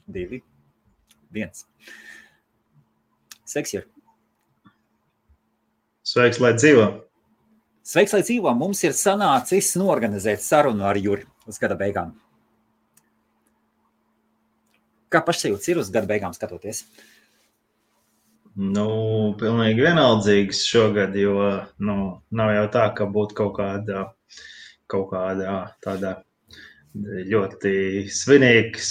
2, 1. Sveiks, Jur. Sveiks, lai dzīvo. Sveiks, lai dzīvo. Mums ir sanācis norganizēt sarunu ar Juri uz gada beigām. Kā pašsajūts ir uz gada beigām skatoties? Pilnīgi vienaldzīgs šogad, jo nav jau tā, ka būtu kaut kāda tāda ļoti svinīga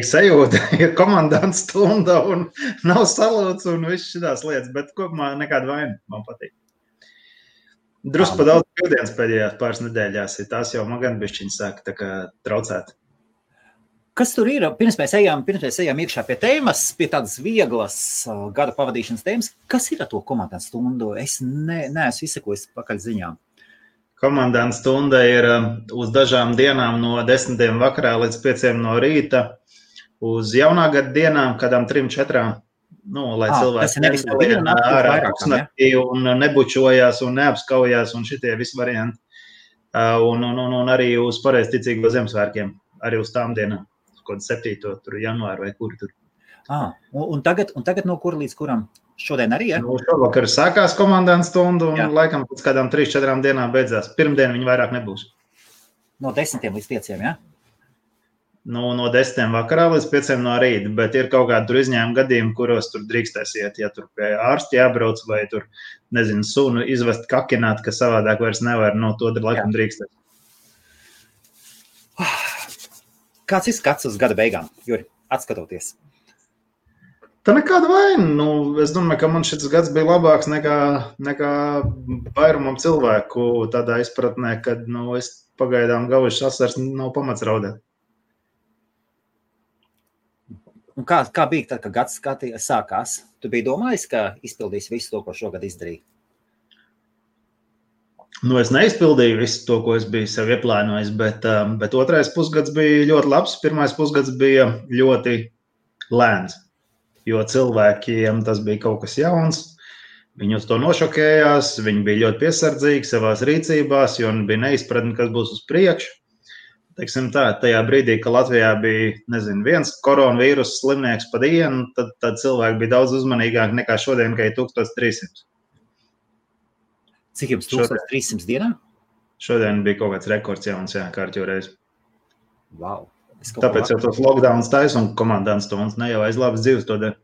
sajūta, ja komandants stunda un nav salūts un viss šitās lietas, bet kopumā nekāda vaina, man patīk. Drusku pa daudz brīvdienas pēdējās pāris nedēļās, tās jau man gan bišķiņi sāka tā kā traucēt. Kas tur ir? Pirms mēs ejam iekšā pie tēmas, pie tādas vieglas gada pavadīšanas tēmas, kas ir ar to komandants stundu? Es neesmu izsekojis pakaļ ziņām. Komandants stunda ir uz dažām dienām no 10 vakarā līdz 5 no rīta, uz jaunā gada dienām, kādām 3-4, lai cilvēki nevienā ārā pusnaktī un nebučojās un neapskaujās un šitie visi varianti. Un arī uz pareizticīgo Ziemassvētkiem, arī uz tām dienām. Kaut 7. janvāru vai kuri tur. Un tagad no kura līdz kuram? Šodien arī, ja? Šovakar sākās komandants stundu un laikam pēc kādām 3-4 dienām beidzās. Pirmdien viņi vairāk nebūs. No 10 līdz 5, ja? No 10 vakarā līdz 5 no rīta, bet ir kaut kādi tur izņēmumi gadījumi, kuros tur drīkstēs iet, ja tur pie ārsti jābrauc vai tur, sunu izvest kakināt, ka savādāk vairs nevar, to laikam drīkstēs. Kāds ir skats uz gada beigām, Juri, atskatoties? Tā nekāda vaina. Es domāju, ka man šis gads bija labāks nekā vairumam cilvēku tādā izpratnē, kad es pagaidām gaujuši asars nav pamats raudēt. Un kā bija tad, kad gads sākās? Tu biji domājis, ka izpildīs visu to, ko šogad izdarīji? Es neizpildīju visu to, ko es biju sev ieplānojis, bet otrais pusgads bija ļoti labs. Pirmais pusgads bija ļoti lēns, jo cilvēkiem tas bija kaut kas jauns. Viņi uz to nošokējās, viņi bija ļoti piesardzīgi savās rīcībās, jo bija neizpratni, kas būs uz priekšu. Teiksim tā, tajā brīdī, ka Latvijā bija, viens koronavīrus slimnieks pa dienu, tad cilvēki bija daudz uzmanīgāki nekā šodien, ka ir 1300. Cik jums 1300 dienā? Šodien bija kaut kāds rekords jauns, kārtjoreiz. Wow. Tāpēc jau tos lockdowns taisa un komandants stundas ne jau aiz labas dzīves to dara.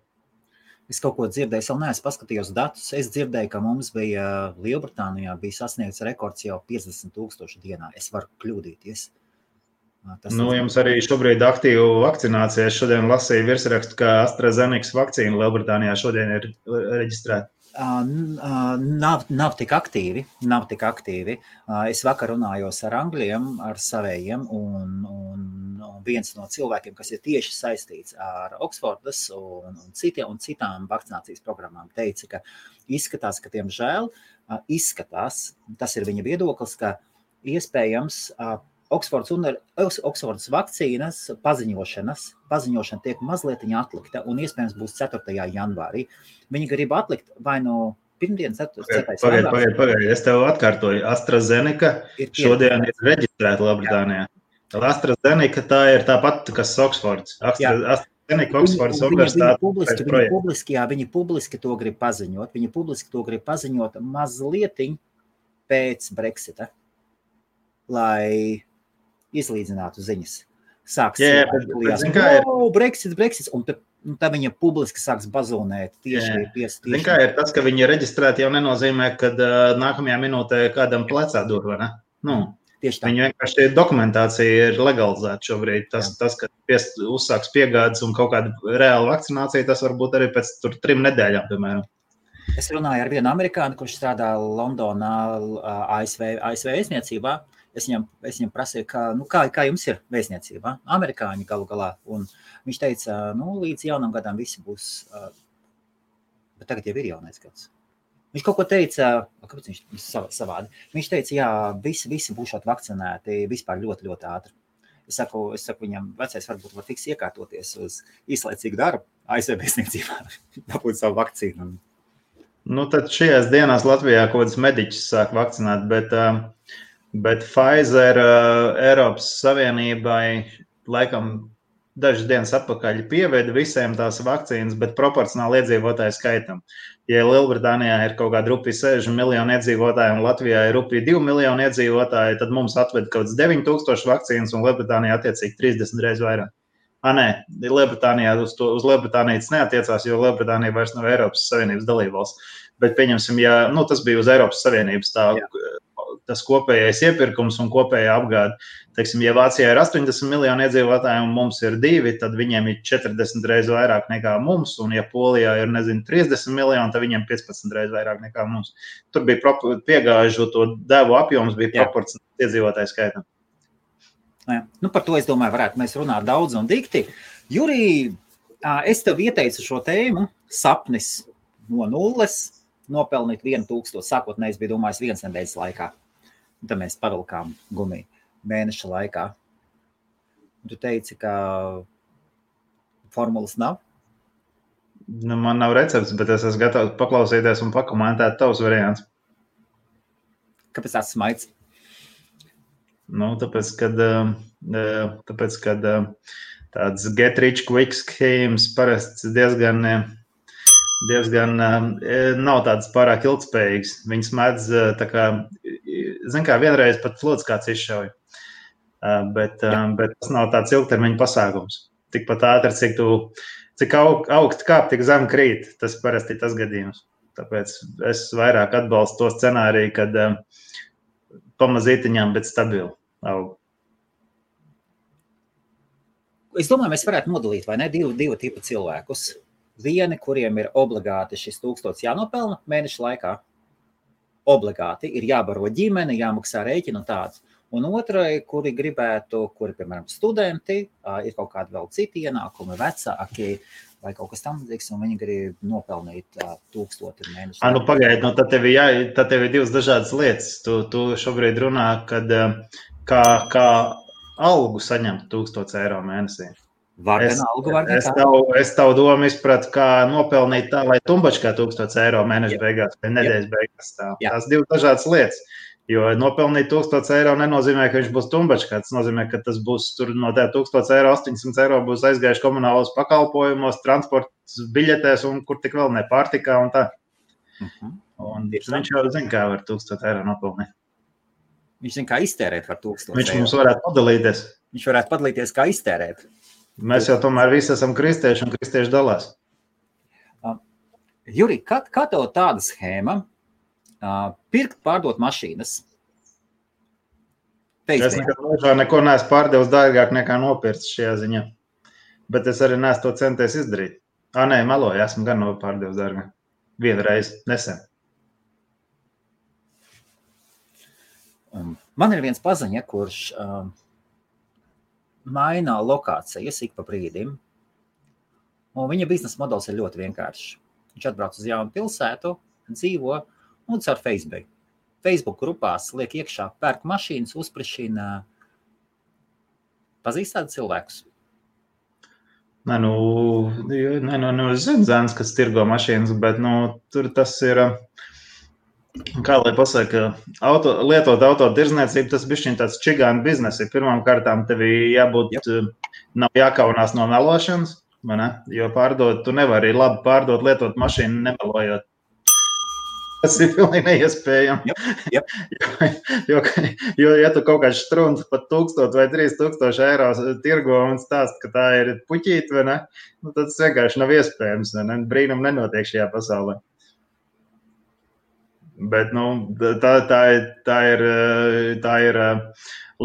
Es kaut ko dzirdēju, vēl neesmu paskatījos datus. Es dzirdēju, ka mums bija Lielbritānijā bija sasniegts rekords jau 50,000 dienā. Es varu kļūdīties. Jums arī šobrīd aktīvu vakcinācija. Es šodien lasīju virsrakstu, ka AstraZeneca vakcīna Lielbritānijā šodien ir reģistrēta. Nav tik aktīvi. Es vakar runājos ar angļiem, ar savējiem, un viens no cilvēkiem, kas ir tieši saistīts ar Oksfordas un citām vakcinācijas programmām, teica, ka izskatās, ka tiemžēl tas ir viņa viedoklis, ka iespējams Oksfordas vakcīnas paziņošana tiek mazliet atlikta un iespējams būs 4. janvārī. Viņi grib atlikt vai no pirmdienas 4. janvārī. Pagaid, es tev atkārtoju. AstraZeneca šodien ir reģistrēta Lielbritānijā. AstraZeneca tā ir tāpat, kas Oksfords. AstraZeneca Oksfords universitāte. Viņi publiski to grib paziņot. Viņi publiski to grib paziņot mazlietiņ pēc Brexita, lai izlīdzinātu ziņas. Brexits, un tad viņa publiski sāks bazonēt tieši. Zin kā ir tas, ka viņi ir reģistrēti, jau nenozīmē, ka nākamajā minūtē kādam plecā dur, vai ne? Tieši tā. Viņa vienkārši dokumentācija ir legalizēta šobrīd. Tas ka uzsāks piegādes un kaut kāda reāla vakcinācija, tas varbūt arī pēc 3 nedēļām, piemēram. Es runāju ar vienu amerikāni, kurš strādā Londonā, ASV vēstniecībā. Es viņam prasīju, kā jums ir vēstniecībā, amerikāņi galu galā, un viņš teica, līdz jaunam gadam visi būs, bet tagad jau ir jaunais gads. Viņš kaut ko teica, kāpēc viņš savādi? Viņš teica, visi būšot vakcinēti vispār ļoti, ļoti ātri. Es saku viņam, vecais varbūt var tiks iekārtoties uz īslaicīgu darbu, ASV vēstniecībā, dabūt savu vakcīnu. Tad šajās dienās Latvijā kaut kādas mediķis sāk vakcinēt, bet Pfizer Eiropas Savienībai laikam dažas dienas atpakaļ pieveda visiem tās vakcīnas, bet proporcionāli iedzīvotāju skaitam. Ja Lielbritānijā ir kaut kāda rupja 60 miljoni iedzīvotāji un Latvijā ir rupja 2 miljoni iedzīvotāji, tad mums atved kaut kāds 9000 vakcīnas un Lielbritānijā attiecīgi 30 reizes vairāk. Nē, Lielbritānijā uz Lielbritāniju tas neatiecās, jo Lielbritānija vairs nav Eiropas Savienības dalībvalsts. Bet pieņemsim, ja tas bija uz Eiropas Savienības tas kopējais iepirkums un kopējā apgāde. Teiksim, ja Vācijā ir 80 miljoni iedzīvotāji un mums ir 2, tad viņiem ir 40 reizes vairāk nekā mums, un ja Polijā ir, 30 miljoni, tad viņiem 15 reizes vairāk nekā mums. Tur bija piegājušo to devu apjoms, bija proporcionāls iedzīvotāju skaitam. Par to, es domāju, varētu mēs runāt daudz un dikti. Jurij, es tev ieteicu šo tēmu, sapnis no nulles, nopelnīt 1000, sākotnēji bija domājis 1 nedēļas laikā. Un tad mēs pavilkām gumiju mēneša laikā. Tu teici, ka formulas nav? Man nav recepts, bet es esmu gatavs paklausīties un pakomentēt tavus variants. Kāpēc tāds smaids? Tāpēc, kad tāds get rich quick schemes parasti diezgan nav tāds pārāk ilgspējīgs. Viņas mēdz vienreiz pat flots kāds izšauja. Bet tas nav tāds ilgtermiņa pasākums. Tikpat ātri, cik augst kāp, tik zem krīt. Tas parasti ir tas gadījums. Tāpēc es vairāk atbalstu to scenāriju, kad pamazītiņām, bet stabili aug. Es domāju, mēs varētu nodalīt, vai ne, divu tipu cilvēkus. Vieni, kuriem ir obligāti šis 1000 jānopelna mēneša laikā. Obligāti ir jābaro ģimene, jāmaksā rēķina un tāds. Un otrai, kuri, piemēram, studenti, ir kaut kādi vēl citi ienākumi, vecāki vai kaut kas tamlīdzīgs, un viņi grib nopelnīt 1000 mēnešu. Pagaidi, tad tev ir divas dažādas lietas. Tu šobrīd runā, kad kā algu saņemt 1000 eiro mēnesī. Es tavu domu izpratu, kā nopelnīt tā, lai tumbačkā 1000 eiro mēneša beigās vai nedēļas beigās. Tās divas dažādas lietas. Jo nopelnīt 1000 eiro nenozīmē, ka viņš būs tumbačkā. Tas nozīmē, ka tas būs tur no tā 1000 eiro, 800 eiro būs aizgājuši komunālos pakalpojumos, transports biļetēs un kur tik vēl ne pārtikā un tā. Un viņš jau zina, kā var 1000 eiro nopelnīt. Viņš zina, kā iztērēt var 1000 viņš eiro. Mums varētu padalīties. Viņš varētu padalīties, kā iztērēt. Mēs jau tomēr visi esam kristieši un kristieši dalās. Jurij, kā tev tāda schēma pirkt, pārdot mašīnas? Es neko neesmu pārdevis dārgāk nekā nopirts šajā ziņā. Bet es arī neesmu to centies izdarīt. Nē, meloju, esmu gan pārdevis dārgāk. Vienreiz, nesen. Man ir viens paziņa, kurš maina lokācijas ik pa brīdim, un viņa biznesa modelis ir ļoti vienkāršs. Viņš atbrauc uz jaunu pilsētu, dzīvo un caur Facebook grupās liek iekšā, pērk mašīnas, uzprišina. Pazīst tādu cilvēkus? Es zinu zēns, kas tirgo mašīnas, bet tur tas ir, kā lai pasaka, lietot auto tirzniecību, tas bišķiņ tāds čigānu biznesi. Pirmām kārtām tev jābūt, nav jākaunās no melošanas, jo tu nevari labi pārdot, lietot mašīnu nemelojot. Tas ir pilnīgi neiespējami. Jo, ja tu kaut kāds strunts pat 1000 vai 3000 eiro tirgo un stāst, ka tā ir puķīt, vai ne? Tad tas vienkārši nav iespējams, vai ne? Brīnum nenotiek šajā pasaulē. Bet, tā ir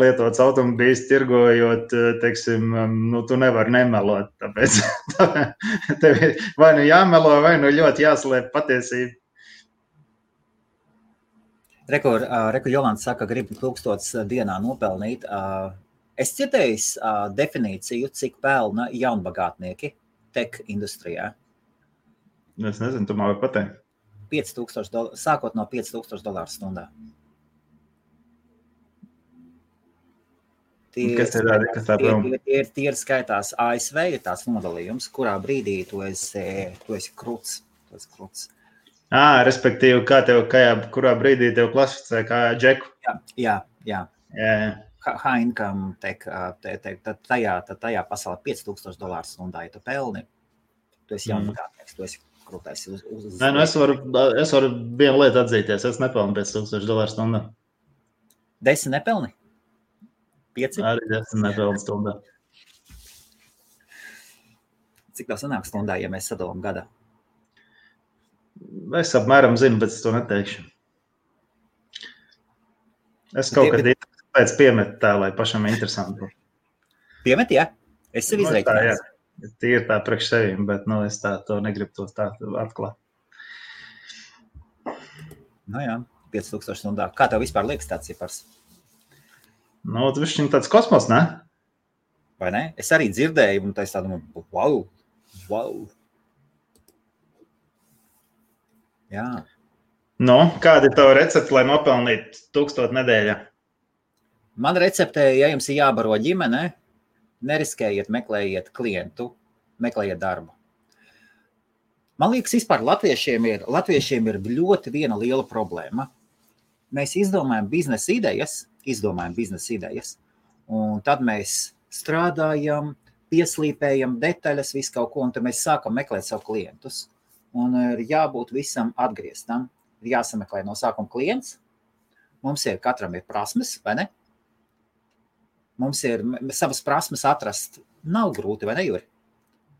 lietots automobīls tirgojot, teiksim, tu nevari nemelot, tāpēc tev vai jāmelo, vai ļoti jāslēp patiesība. Reku Jolanta saka, grib 1000 dienā nopelnīt. Es citējis definīciju, cik pelna jaunbagātnieki tech industrijā. Es nezinu, tu man vari pateikt. $5000, sākot no $5000 stundā. Tie ir skaitās ASV, ir tās nodalījums, kurā brīdī tu esi kruts. Respektīvi, kurā brīdī tev klasificē kā džeku. Jā. high income tech, tajā pasaulē $5,000 stundā, ja tu pelni, tu esi jaunbagātnieks, tu esi krūtais uz Nē, es varu vienu lietu atzīties, es nepelnu $5,000 stundā. 10 nepelni? 5? Arī 10 nepelnu stundā. Cik tā sanāk stundā, ja mēs sadalām gadā? Es apmēram zinu, bet es to neteikšu. Es kaut kad pēc piemetu tā, lai pašam interesanti. Piemet, jā? Es sev izreikinājis. Tīri tā priekš sevim, bet es to negribu to tā atklāt. Nu jā, 5,000 stundā. Kā tev vispār liekas tāds cipars? Tas viņš tāds kosmos, ne? Vai ne? Es arī dzirdēju, un tā es tā domāju, wow. Jā. Kāda ir tava recepte, lai nopelnītu 1000 nedēļā? Man recepte, ja jums ir jābaro ģimene, neriskējiet, meklējiet klientu, meklējiet darbu. Man liekas, vispār latviešiem ir ļoti viena liela problēma. Mēs izdomājam biznesa idejas, un tad mēs strādājam, pieslīpējam detaļas, visu kaut ko, un tad mēs sākam meklēt savu klientus. Un ir jābūt visam atgrieztam. Ir jāsameklē no sākuma klients. Katram ir prasmes, vai ne? Mums ir savas prasmes atrast. Nav grūti, vai ne, Juri?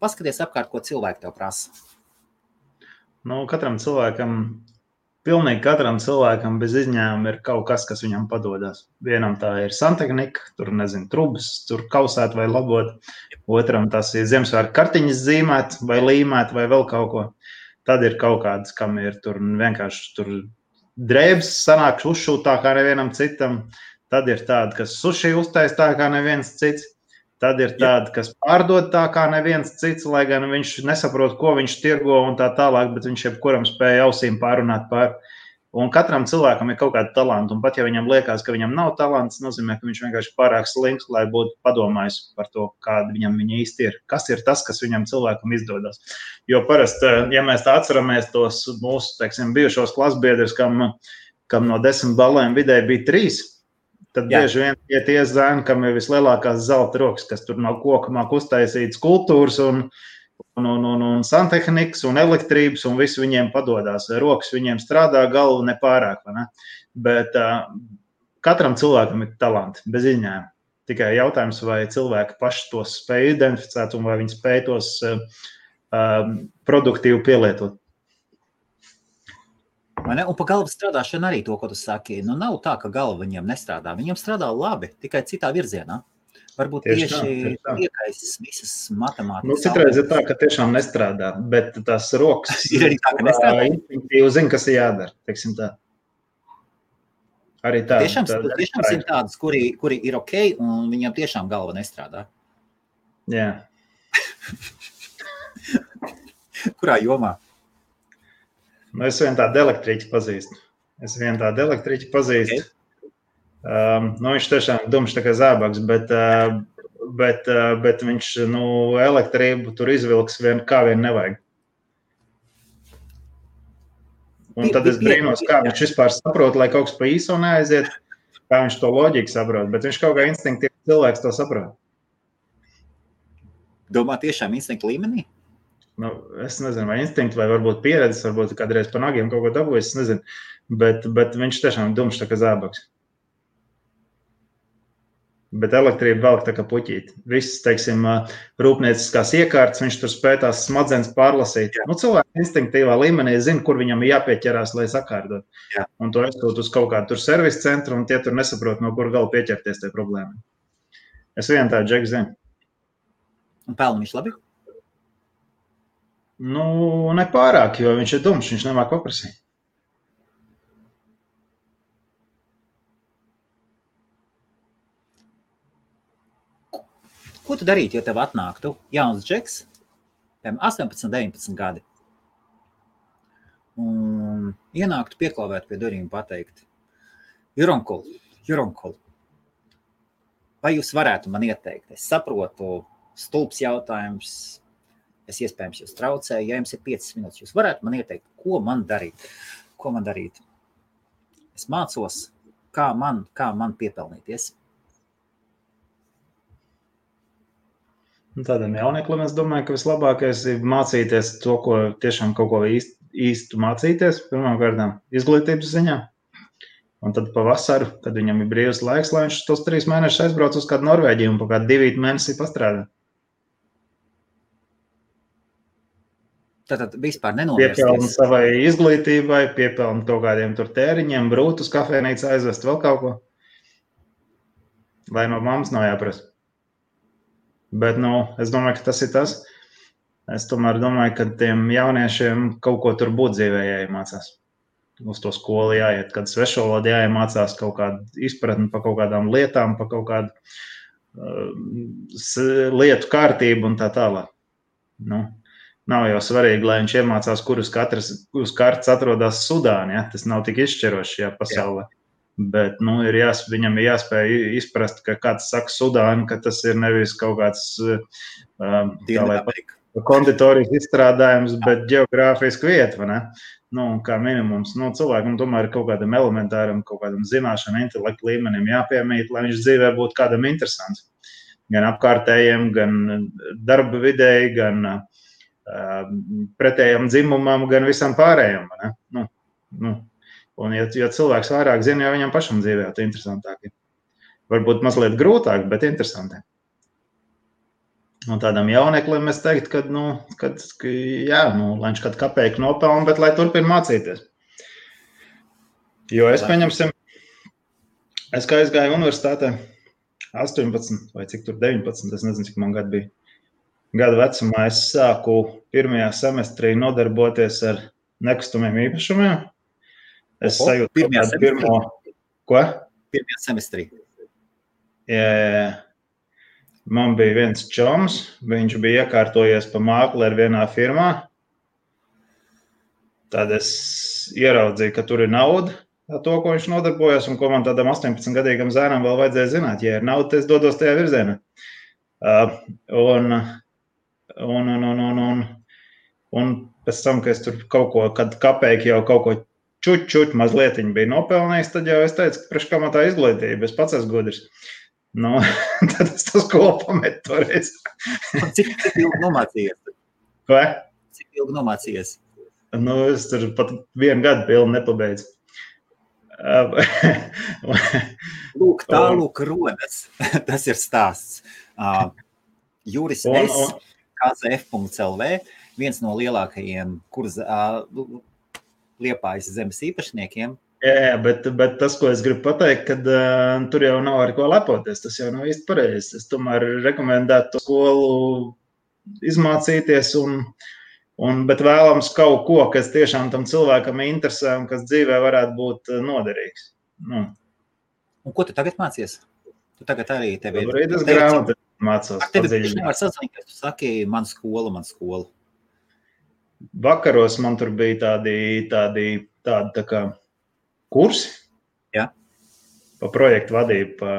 Paskaties apkārt, ko cilvēki tev prasa. Pilnīgi katram cilvēkam bez izņēmuma ir kaut kas, kas viņam padodas. Vienam tā ir santehnika, tur, trubas, tur kausēt vai labot. Otram tas ir Ziemassvētku kartiņas zīmēt vai līmēt vai vēl kaut ko. Tad ir kaut kāds, kam ir tur vienkārši drēbes sanāk uzšūt tā kā nevienam citam. Tad ir tādi, kas suši uztais tā kā neviens cits. Tad ir tādi, kas pārdod tā kā neviens cits, lai gan viņš nesaprot, ko viņš tirgo un tā tālāk, bet viņš jebkuram spēja ausīm pārunāt pār. Un katram cilvēkam ir kaut kāda talanta, un pat ja viņam liekas, ka viņam nav talants, nozīmē, ka viņš vienkārši pārāk slinks, lai būtu padomājis par to, kāda viņam īsti ir. Kas ir tas, kas viņam cilvēkam izdodas? Jo parasti, ja mēs tā atceramies tos mūsu, bijušos klasbiedrus, kam no 10 balēm vidēji bija 3, tad bieži vien tie zēni, kam ir vislielākās zelta rokas, kas tur no koka māk uztaisīt skulptūras un santehnikas un elektrības, un visu viņiem padodas. Rokas viņiem strādā, galva nepārāk, vai ne? Bet katram cilvēkam ir talanti, bez izņēmuma. Tikai jautājums, vai cilvēki paši tos spēj identificēt, un vai viņi spēj tos produktīvi pielietot. Un pa galvas strādāšanu arī to, ko tu saki. Nav tā, ka galva viņiem nestrādā. Viņiem strādā labi, tikai citā virzienā. Varbūt tieši iekaisis visas matemātikas. Citreiz ir tā, ka tiešām nestrādā, bet tās rokas ir arī tā, ka nestrādā. Instinktīvi zina, kas ir jādara, teiksim tā. Arī tā. Tiešām ir tādas, kuri ir ok, un viņam tiešām galva nestrādā. Jā. Kurā jomā? Es vienu tādu elektriķi pazīstu. Okay. Viņš tiešām dumšs tā kā zābaks, bet viņš elektrību tur izvilks kā vien nevajag. Un tad es brīnos, kā viņš vispār saprot, lai kaut kas pa īso neaiziet, kā viņš to loģiku saprot, bet viņš kaut kā instinktīvi cilvēks to saprot. Domā tiešām instinktu līmenī? Es nezinu, vai instinkti, vai varbūt pieredzes, varbūt kādreiz pa nagiem kaut ko dabūjis, es nezinu, bet viņš tiešām dumšs tā kā zābaks. Bet elektrība velk tā kā puķīt. Viss, rūpnieciskās iekārtas, viņš tur spēj tās smadzenes pārlasīt. Cilvēki instinktīvā līmenī zina, kur viņam jāpieķerās, lai sakārtot. Jā. Un to aizsūt uz kaut kādu tur servisu centru, un tie tur nesaprot, no kur gala pieķerties tie problēmai. Es vienu tādu džeku zinu. Un pelna viņš labi? Nepārāk, jo viņš ir dumšs, viņš nemāk paprasīt. Ko tu darītu, ja tev atnāktu jauns džeks, 18, 19 gadi, un ienāktu pieklauvēt pie durvīm pateikt, Juronkul, vai jūs varētu man ieteikt? Es saprotu, stulbs jautājums, es iespējams jūs traucēju, ja jums ir 5 minūtes, jūs varētu man ieteikt, ko man darīt? Es mācos, kā man piepelnīties. Tādam jaunieklim es domāju, ka vislabākais ir mācīties to, ko tiešām kaut ko īstu mācīties, pirmkārt, izglītības ziņā. Un tad pavasaru, kad viņam ir brīvs laiks, lai viņš tos 3 mēnešus aizbrauc uz kādu Norvēģiju un pa kādu 2 mēnesi pastrādā. Tātad vispār nenovērsties. Piepelna savai izglītībai, piepelna kaut kādiem tur tēriņiem, brūt uz kafejnīcu aizvest vēl kaut ko. Lai no mammas nav jāprasa. Bet, es domāju, ka tas ir tas. Es tomēr domāju, ka tiem jauniešiem kaut ko tur būt dzīvē jāiemācās. Uz to skolu jāiet, kad svešvalodu jāiemācās kaut kādu izpratni par kaut kādām lietām, par kaut kādu lietu kārtību un tā tālāk. Nav jau svarīgi, lai viņš iemācās, kur uz kartas atrodas Sudāna. Ja? Tas nav tik izšķiroši šajā pasaulē. Jā. Bet viņam ir jāspēj izprast, ka kāds saka Sudāna, ka tas ir nevis kaut kāds konditorijas izstrādājums, bet geogrāfiska vieta, vai ne? Kā minimums, cilvēkam tomēr ir kaut kādam elementāram, kaut kādam zināšanu, intelektu līmenim jāpiemīt, lai viņš dzīvē būtu kādam interesants. Gan apkārtējiem, gan darba vidēji, gan pretējam dzimumam, gan visam pārējiem. Un ja cilvēks vairāk zina, jau viņam pašam dzīvē tas interesantāk ir. Varbūt mazliet grūtāk, bet interesantāk. Un tādam jauneklim es teiktu, ka lai viņš kādu kapeiku nopelna, bet lai turpina mācīties. Jo es kā aizgāju universitātē 18 vai cik tur 19, es nezinu, cik man gadu bija. Gadu vecumā es sāku pirmajā semestrī nodarboties ar nekustamiem īpašumiem. Es sajūtu pirmo... Ko? Pirmajā semestrī. Jā. Man bija viens čoms, viņš bija iekārtojies pa mākleri vienā firmā. Tad es ieraudzīju, ka tur ir nauda, to, ko viņš nodarbojas, un ko man tādam 18-gadīgam zēnam vēl vajadzēja zināt. Ja ir nauda, tad es dodos tajā virzienā. Un pēc tam, ka es tur kaut ko, kad kapeiki jau kaut ko čuķ mazlietiņu bija nopelnījis, tad jau es teicu, ka priekš kā man tā izglītība, es pats esmu gudrs. Tad es to skolu pametu toreiz. Cik ilgi nomācījies? Vai? Cik ilgi nomācījies? Es tur pat 1 gadu pilnu nepabeidzu. Lūk, tālūk rodas. Tas ir stāsts. Juris S. KZF.LV, viens no lielākajiem Liepājas zemes īpašniekiem. Jā, bet tas, ko es gribu pateikt, kad tur jau nav ar ko lepoties, tas jau nav īsti pareizi. Es tomēr rekomendētu to skolu izmācīties, bet vēlams kaut ko, kas tiešām tam cilvēkam interesē un kas dzīvē varētu būt noderīgs. Un ko tu tagad mācies? Tu tagad arī tevi ir... Es grāmatu mācos. Tevi tieši nevar sazināt, tu saki, man skola. Vakaros man tur bija tādi tā kā kursi. Jā. Pa projektu vadību, pa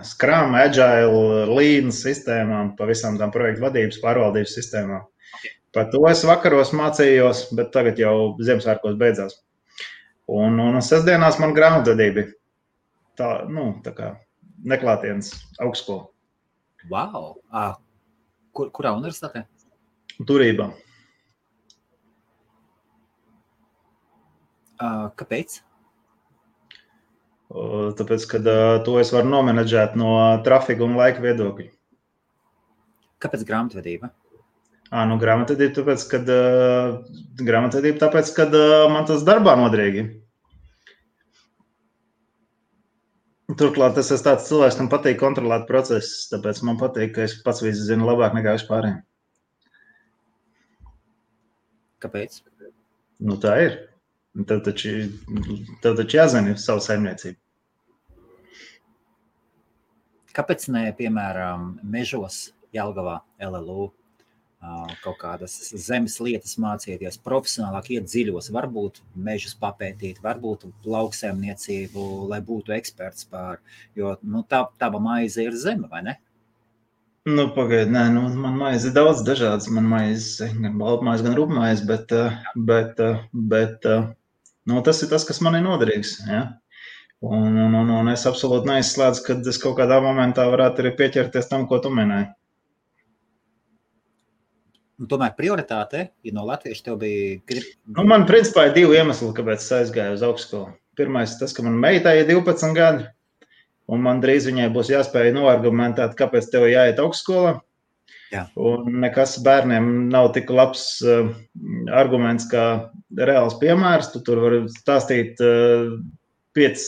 Scrum, Agile, Lean sistēmām, pa visām tām projektu vadības, pārvaldības sistēmām. Okay. Par to es vakaros mācījos, bet tagad jau Ziemassvētkos beidzās. Un sestdienās man grāmatvedība tā kā neklātienes augstskola. Wow! Kurā universitātē? Turībā. Kāpēc? Tāpēc, ka to es varu nomenedžēt no trafika un laika viedokļa. Kāpēc grāmatvedība? Grāmatvedība tāpēc, kad man tas darbā noderīgi. Turklāt es esmu tāds cilvēks, kam patīk kontrolēt procesus, tāpēc man patīk, ka es pats visu zinu labāk nekā vispārējiem. Kāpēc? Tā ir. Tev taču jāzina savu saimniecību. Kāpēc ne, piemēram, mežos, Jelgavā, LLU, kaut kādas zemes lietas mācīties, profesionālāk iet dziļos, varbūt mežus papētīt, varbūt lauksaimniecību, lai būtu eksperts pār, jo tava maize ir zeme, vai ne? Pagaid, man maize ir daudz dažādas, man maize, gan baltmaize, gan rupmaize, bet tas ir tas, kas man ir noderīgs, ja? Un es absolūti neizslēdzu, kad es kaut kādā momentā varētu arī pieķerties tam, ko tu minēji. Un tomēr prioritāte, ja no latviešu tev bija... Man principā ir 2 iemesli, kāpēc es aizgāju uz augstskolu. Pirmais tas, ka man meitai ir 12 gadi, un man drīz viņai būs jāspēj noargumentēt, kāpēc tev jāiet augstskolā. Jā. Un nekas bērniem nav tik labs arguments kā reāls piemērs. Tu tur vari stāstīt 5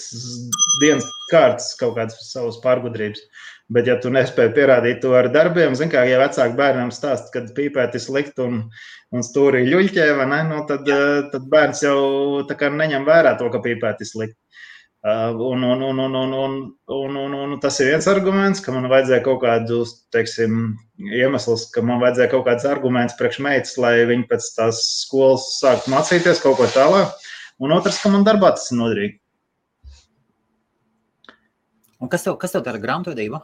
dienas kārtas kaut kādas savas pārgudrības. Bet, ja tu nespēji pierādīt to ar darbiem, zin kā, ja vecāki bērnam stāst, kad pīpēt ir slikt un stūrī ļuļķē, vai ne, nu, tad bērns jau tā kā neņem vērā to, ka pīpēt ir slikt. Un tas ir viens arguments, ka man vajadzēja kaut kādu, teiksim, iemesls, ka man vajadzēja kaut kāds arguments priekš meitas, lai viņi pēc tās skolas sāktu mācīties kaut ko tālāk. Un otrs, ka man darbā tas ir noderīgi. Un kas tev dara grāmatvedību?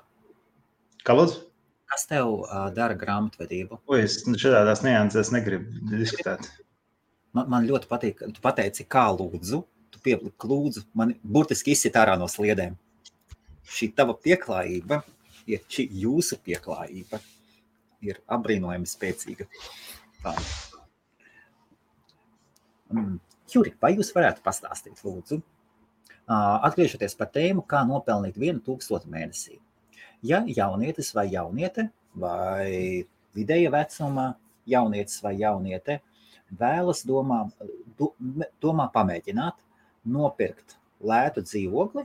Kā lūdzu? Kas tev dara grāmatvedību? Es šādās niansēs negribu diskutēt. Man ļoti patīk, tu pateici, kā lūdzu, tu piepliki lūdzu, man burtiski izsit ārā no sliedēm. Šī tava pieklājība, šī jūsu pieklājība ir apbrīnojami spēcīga. Tā. Juri, vai jūs varētu pastāstīt, lūdzu, atgriežoties par tēmu, kā nopelnīt 1000 mēnesī? Ja jaunietis vai jauniete, vai vidēja vecuma jaunietis vai jauniete vēlas domā pamēģināt nopirkt lētu dzīvokli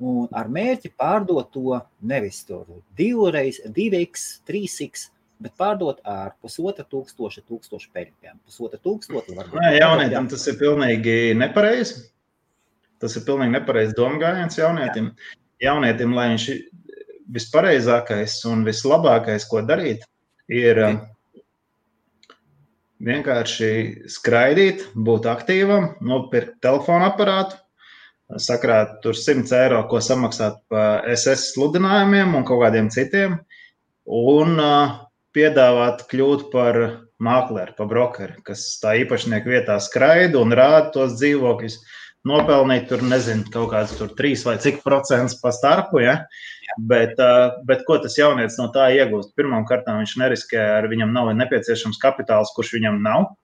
un ar mērķi pārdot to nevis tur 2x, 3x, bet pārdot ar 1500 peļņiem. 1500 varbūt. Nē, jaunietim tas ir pilnīgi nepareizi. Tas ir pilnīgi nepareizi domgājiens jaunietim. Jaunietim, lai viņš vispareizākais un vislabākais, ko darīt, ir vienkārši skraidīt, būt aktīvam, nopirkt telefonu aparātu, sakrāt tur 100 eiro, ko samaksāt pa SS sludinājumiem un kaut kādiem citiem, un piedāvāt kļūt par mākleri, par brokeri, kas tā īpašnieku vietā skraida un rāda tos dzīvokļus. Nopelnīt tur, nezinu, kaut kāds tur 3 vai cik procents pa starpu, ja? Bet ko tas jaunietis no tā iegūst? Pirmām kārtām viņš neriskē, ar viņam nav nepieciešams kapitāls, kurš viņam nav,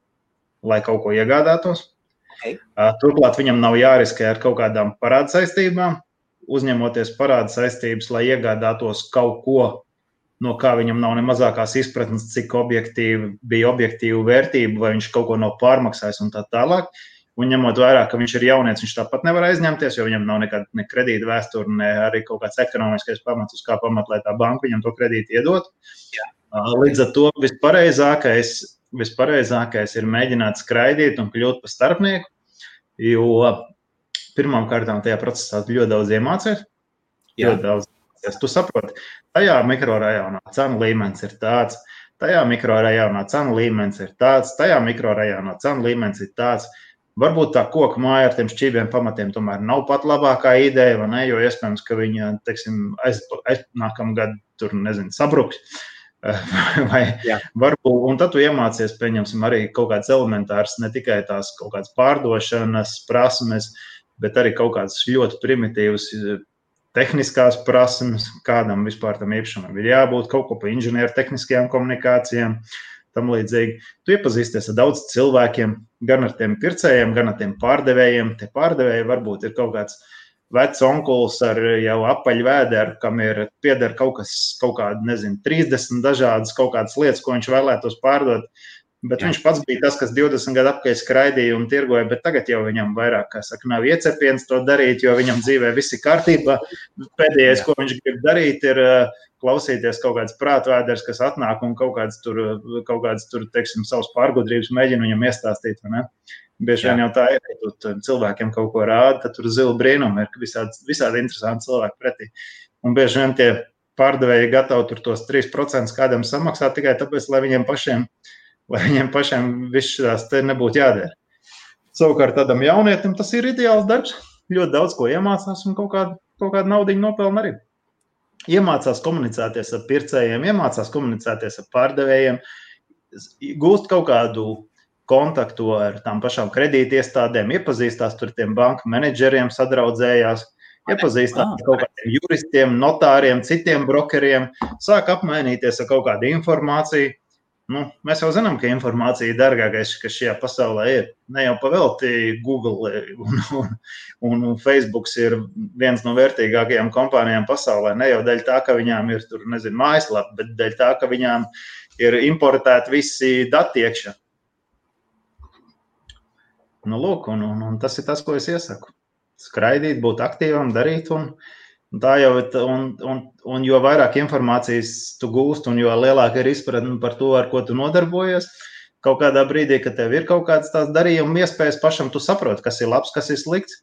lai kaut ko iegādātos. Okay. Turklāt viņam nav jāriskē ar kaut kādām parāda saistībām, uzņemoties parāda saistības, lai iegādātos kaut ko, no kā viņam nav ne mazākās izpratnes, cik bija objektīva vērtība, vai viņš kaut ko nav pārmaksājis un tā tālāk. Un ņemot vērā, ka viņš ir jaunietis, viņš tāpat nevar aizņemties, jo viņam nav nekāda ne kredīta vēsture, ne arī kaut kāds ekonomiskais pamats, uz kā pamat, lai tā banka viņam to kredītu iedot. Līdz ar to vispareizākais ir mēģināt skraidīt un kļūt par starpnieku, jo pirmām kārtām tajā procesā ļoti daudz iemācies. Ļoti daudz. Tu saproti, tajā mikrorajonā cenu līmenis ir tāds, tajā mikrorajonā cenu līmenis ir tāds, tajā mikrorajonā cenu līmenis ir tāds. Varbūt tā koka māja ar tiem šķībiem pamatiem tomēr nav pat labākā ideja, vai ne, jo iespējams, ka viņa, teiksim, nākamā gada tur, nezinu, sabruks. Varbūt, un tad tu iemācies, pieņemsim, arī kaut kāds elementārs, ne tikai tās kaut kādas pārdošanas prasmes, bet arī kaut kādas ļoti primitīvas tehniskās prasmes, kādam vispār tam īpašumam ir jābūt, kaut ko pa inženieru tehniskajām komunikācijām. Tam līdzīgi. Tu iepazīsties ar daudz cilvēkiem, gan ar tiem pircējiem, gan ar tiem pārdevējiem. Tie pārdevēji varbūt ir kaut kāds vecs onkulis ar jau apaļu vēderu, kam ir pieder kaut kāda, nezinu, 30 dažādas kaut kādas lietas, ko viņš vēlētos pārdot. Bet viņš pats bija tas, kas 20 gadu apkārt skraidīja un tirgoja, bet tagad jau viņam vairāk, kā saka, nav iecepiens to darīt, jo viņam dzīvē viss ir kārtībā. Pēdējais, ko viņš grib darīt, ir klausīties kaut kāds prātvēders, kas atnāk un kaut kāds tur, teiksim, savus pārgudrības mēģina viņam iestāstīt, vai ne? Bieži vien jau tā ir, ja tu cilvēkiem kaut ko rāda, tad tur zila brīnumi ir visādi interesanti cilvēki pretī. Un bieži vien tie pārdevēji gatavi tur tos 3% kādam samaksāt tikai tāpēc, lai viņiem pašiem viss šās te nebūtu jādara. Savukārt tādam jaunietim tas ir ideāls darbs, ļoti daudz ko iemācās un kaut kādu naudiņu nopelna arī. Iemācās komunicēties ar pircējiem, iemācās komunicēties ar pārdevējiem, gūst kaut kādu kontaktu ar tām pašām kredītiestādēm, iepazīstās tur tiem banku menedžeriem, sadraudzējās. iepazīstināt ar kaut kādiem juristiem, notāriem, citiem brokeriem, sāk apmainīties ar kaut kādu informāciju. Nu, mēs jau zinām, ka informācija ir dārgākais, kas šajā pasaulē ir. Ne jau pavelti Google un Facebooks ir viens no vērtīgākajām kompānijām pasaulē. Ne jau dēļ tā, ka viņām ir tur, nezinu, mājaslapa, bet dēļ tā, ka viņām ir importēti visi dati iekšā. Nu, lūk, un tas ir tas, ko es iesaku. Skraidīt, būt aktīvam, darīt un tā jau, un jo vairāk informācijas tu gūst, un jo lielāka ir izpratne par to, ar ko tu nodarbojies, kaut kādā brīdī, kad tev ir kaut kāds tās darījuma iespējas pašam, tu saproti, kas ir labs, kas ir slikts.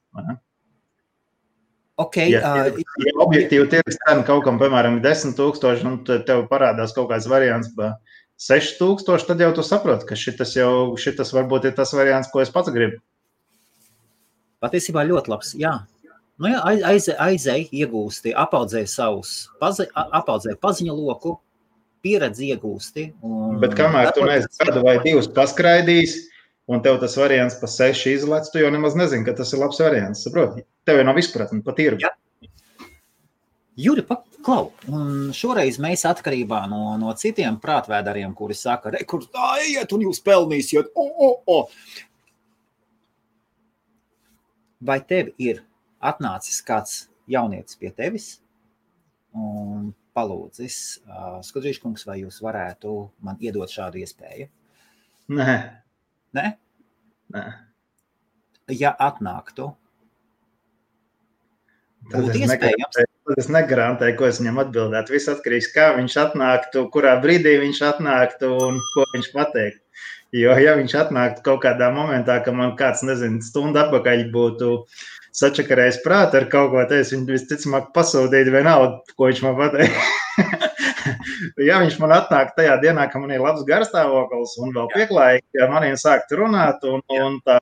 Okay, ja objektīvi tirgus cena kaut kam, piemēram, 10,000, un tev parādās kaut kāds variants pa 6,000, tad jau tu saproti, ka šitas varbūt ir tas variants, ko es pats gribu. Patiesībā ļoti labs, jā. Nu jā, aizēj, iegūsti, apaudzēj paziņu loku, pieredzi iegūsti. Bet kamēr tu neesi gadu vai divus paskraidījis, un tev tas variants pa 6 izlec, tu jau nemaz nezini, ka tas ir labs variants, saproti? Tev jau nav izpratni pa tirgu. Juri, klau, un šoreiz mēs atkarībā no citiem prātvēdariem, kuri saka, kur tā iet un jūs pelnīsiet, Vai tev ir atnācis kāds jaunietis pie tevis un palūdzis, Skudrīškungs, vai jūs varētu man iedot šādu iespēju? Nē. Nē? Nē. Ja atnāktu, būtu iespējams? Tad es negarantēju, ko es viņam atbildētu. Viss atkarīgs, kā viņš atnāktu, kurā brīdī viņš atnāktu un ko viņš pateiktu. Jo, ja viņš atnāktu kaut kādā momentā, ka man kāds, nezinu, stundu atpakaļ būtu sačakarējis prātu ar kaut ko, tad es viņu visticamāk pasūdītu vienalga, ko viņš man pateikt. Ja viņš man atnāk tajā dienā, ka man ir labs garstāvoklis un vēl pieklājīgi, ja maniem sākt runāt un tā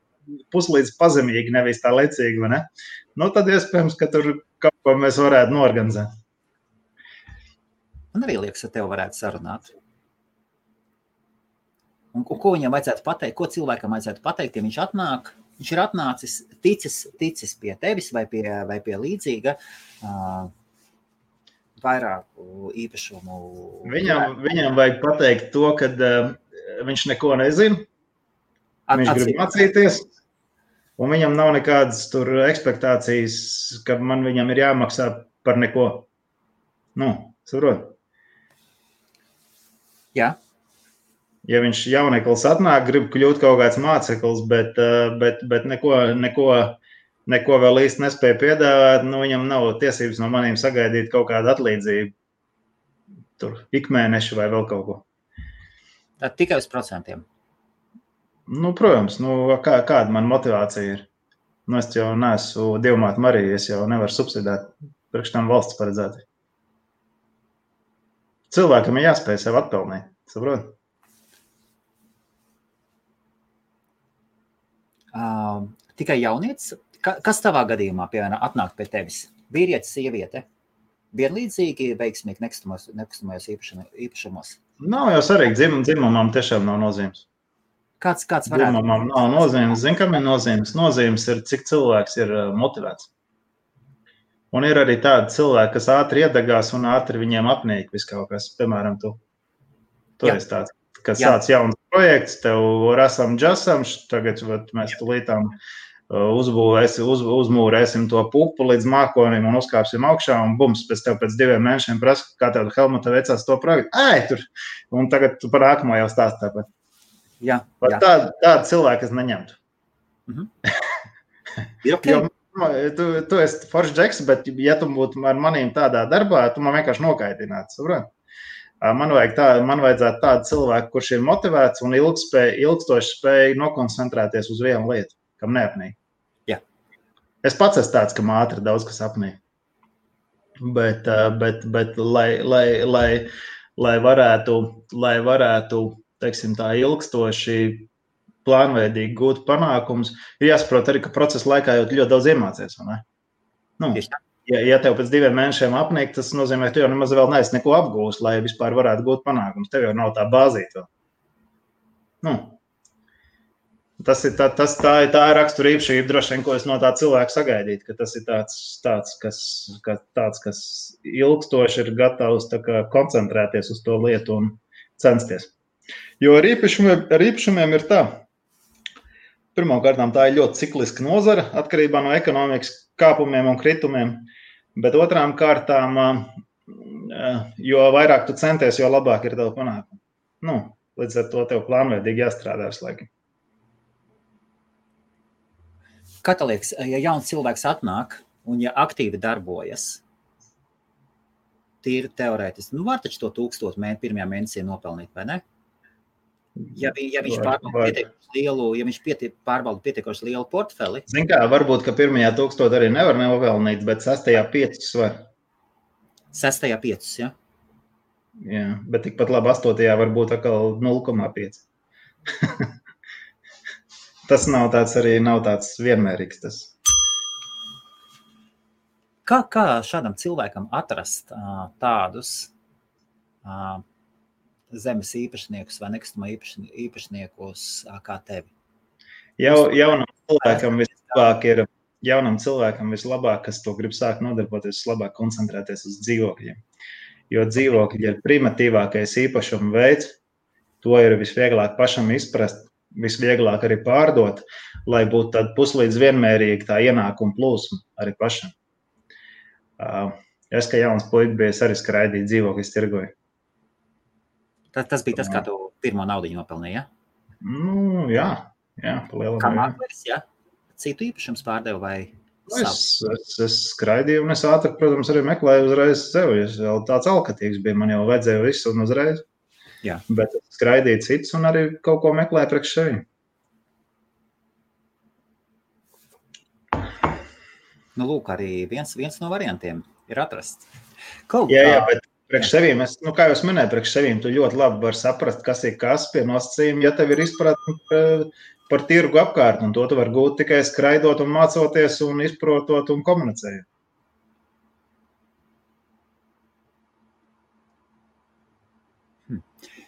puslīdz pazemīgi, nevis tā lecīgi, vai ne? Nu, tad iespējams, ka tur kaut ko mēs varētu norganizēt. Man arī liekas, ka tev varētu sarunāt. Un ko viņam vajadzētu pateikt, ko cilvēkam vajadzētu pateikt, ja viņš ir atnācis, ticis pie tevis vai pie līdzīga vairāku īpašumu. Viņam vajag pateikt to, ka viņš neko nezina, viņš grib mācīties, un viņam nav nekādas tur ekspektācijas, ka viņam ir jāmaksā par neko. Nu, saprot? Jā. Ja viņš jauneklis atnāk, grib kļūt kaut kāds māceklis, bet neko vēl īsti nespēja piedāvāt, nu viņam nav tiesības no maniem sagaidīt kaut kādu atlīdzību. Tur ikmēnešu vai vēl kaut ko. Tā tikai uz procentiem? Nu, protams, kāda man motivācija ir? Nu, es jau neesmu Dievmāte Marija, es jau nevaru subsidēt, priekš tam valsts paredzēti. Cilvēkam ir jāspēj sev atpelnīt, saprot? Tikai jaunietis? Kas tavā gadījumā, piemēram, atnāk pie tevis? Vīrietis, sieviete? Vienlīdzīgi veiksmīgi nekustamajos īpašumos? Nav jau svarīgi, dzimumam tiešām nav nozīmes. Kāds varētu? Dzimumam nav nozīmes. Zin, kam ir nozīmes? Nozīmes ir, cik cilvēks ir motivēts. Un ir arī tādi cilvēki, kas ātri iedegās un ātri viņiem apnīk viss kaut kas. Piemēram, tu esi tāds, kas sāc jauns projekts, tev rasam džasam, tagad mēs tulītām uzmūrēsim to pupu līdz mākonim un uzkāpsim augšā un bums, pēc 2 mēnešiem prasa, kā tev Helmuta veicās to projektu. Un tagad tu par nākamo jau stāst tāpat. Jā. Tāda cilvēka es neņemtu. Okay. Jo tu esi foršs džeks, bet ja tu būtu ar manīm tādā darbā, tu man vienkārši nokaitinātu, saprot? Man vajadzētu tādu cilvēku, kurš ir motivēts un ilgstoši spēj nokoncentrēties uz vienu lietu, kam neapnīk. Jā. Es pats esmu tāds, kam ātri daudz kas apnīk. Bet lai varētu, teiksim, tā ilgstoši plānveidīgi gūt panākumus, ir jāsaprot arī, ka procesa laikā jau ļoti daudz iemācies, vai ne? Nu. Ja tev pēc 2 mēnešiem apnīk, tas nozīmē, ka tu jau nemaz vēl neesi neko apgūst, lai vispār varētu gūt panākumus. Tev jau nav tā bāzīta vēl. Nu. Tā ir rakstura īpašība, droši vien, ko es no tā cilvēka sagaidītu, ka tas ir tāds, kas ilgstoši ir gatavs koncentrēties uz to lietu un censties. Jo ar īpašumiem ir tā. Pirmkārt, tā ir ļoti cikliska nozara, atkarībā no ekonomikas kāpumiem un kritumiem, bet otrām kārtām, jo vairāk tu centies, jo labāk ir tev panākumi. Līdz ar to tev plānveidīgi jāstrādā visu laiku. Kā tev liekas, ja jauns cilvēks atnāk un ja aktīvi darbojas, tīri teorētiski, var taču to 1000 pirmajā mēnesī nopelnīt, vai ne? Ja viņš pārvalda pietiekoši lielu portfeli. Zin kā, varbūt, ka pirmajā 1000 arī nevar nopelnīt, bet 6. 5 var. 6. 5, ja? Jā, bet tikpat labi 8. varbūt atkal 0,5. Tas nav tāds vienmērīgs. Tas. Kā šādam cilvēkam atrast tādus zemes īpašniekus vai nekustamā īpašniekus kā tevi? Jaunam cilvēkam vislabāk, kas to grib sākt nodarboties, vislabāk koncentrēties uz dzīvokļiem. Jo dzīvokļi ir primitīvākais īpašuma veids, to ir visvieglāk pašam izprast, visvieglāk arī pārdot, lai būtu tāda puslīdz vienmērīga tā ienākuma plūsma arī pašam. Es, kā jauns puika, biju arī skraidīt dzīvokļus tirgoju. Tas bija tas, kā tu pirmo naudiņu nopelnīji, ja? Jā, pa lielam. Kā māklis, ja? Citu īpašums pārdevu vai savu? Es skraidīju un es ātri, protams, arī meklēju uzreiz sevi. Es vēl tāds alkatīgs bija, man jau vajadzēja visu un uzreiz. Jā. Bet skraidīju cits un arī kaut ko meklēju priekš sevi. Lūk, arī viens no variantiem ir atrasts. Jā, bet priekš sevīm, kā jau es minēju, priekš sevīm tu ļoti labi var saprast, kas ir kas pie nosacījuma, ja tev ir izpratne par tirgu apkārt, un to tu var gūt tikai skraidot un mācoties un izprotot un komunicējot.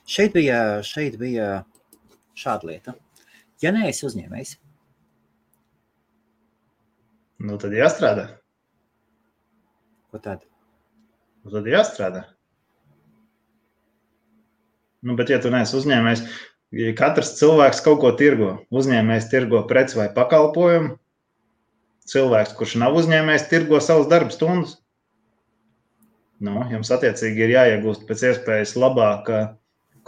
Šeit bija šāda lieta. Ja neesi uzņēmējs, tad jāstrādā. Ko tad? Tad jāstrādā. Bet ja tu neesi uzņēmējs, katrs cilvēks kaut ko tirgo. Uzņēmējs tirgo preci vai pakalpojumu. Cilvēks, kurš nav uzņēmējs, tirgo savus darba stundas. Jums attiecīgi ir jāiegūst pēc iespējas labāka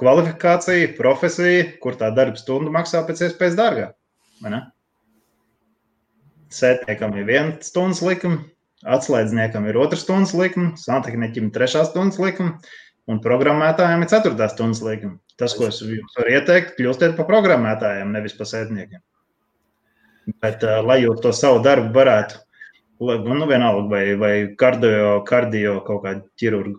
kvalifikācija, profesija, kur tā darba stunda maksā pēc iespējas dārgāk. Vai ne? Sētniekam ir 1 stundas likuma, atslēdzniekam ir 2 stundas likuma, santehniķim 3 stundas likuma un programmētājiem ir 4 stundas likuma. Tas, ko es jums varu ieteikt, kļūstiet par programmētājiem, nevis par sētniekiem. Bet, lai jūs to savu darbu varētu, vienalga vai kardio kaut kādu ķirurgu,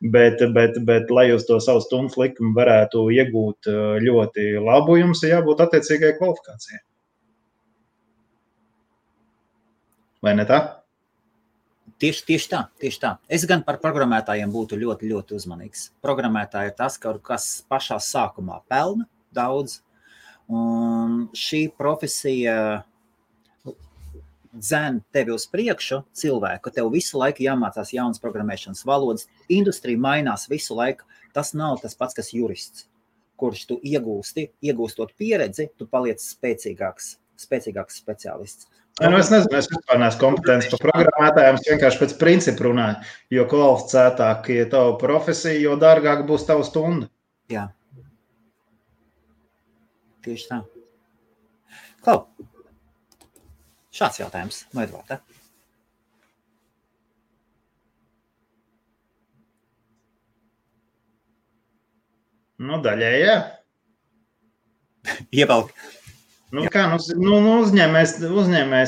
bet lai jūs to savu stundas likumu varētu iegūt ļoti labu, jums ir jābūt attiecīgai kvalifikācijai. Vai ne tā? Tieši tā. Es gan par programmētājiem būtu ļoti, ļoti uzmanīgs. Programmētāji ir tas, kas pašā sākumā pelna daudz, un šī profesija dzen tevi uz priekšu cilvēku, ka tev visu laiku jāmācās jaunas programmēšanas valodas, industrija mainās visu laiku. Tas nav tas pats, kas jurists, kurš tu iegūstot pieredzi, tu paliec spēcīgāks speciālists. Es nezinu, es vispār neesmu kompetents par programmētājiem, es vienkārši pēc principu runāju, jo kvalificētāk ir tava profesija, jo dārgāk būs tava stunda. Jā. Tieši tā. Klau, šāds jautājums no Edvarda. Daļai, jā. Ievelk. Uzņēmējs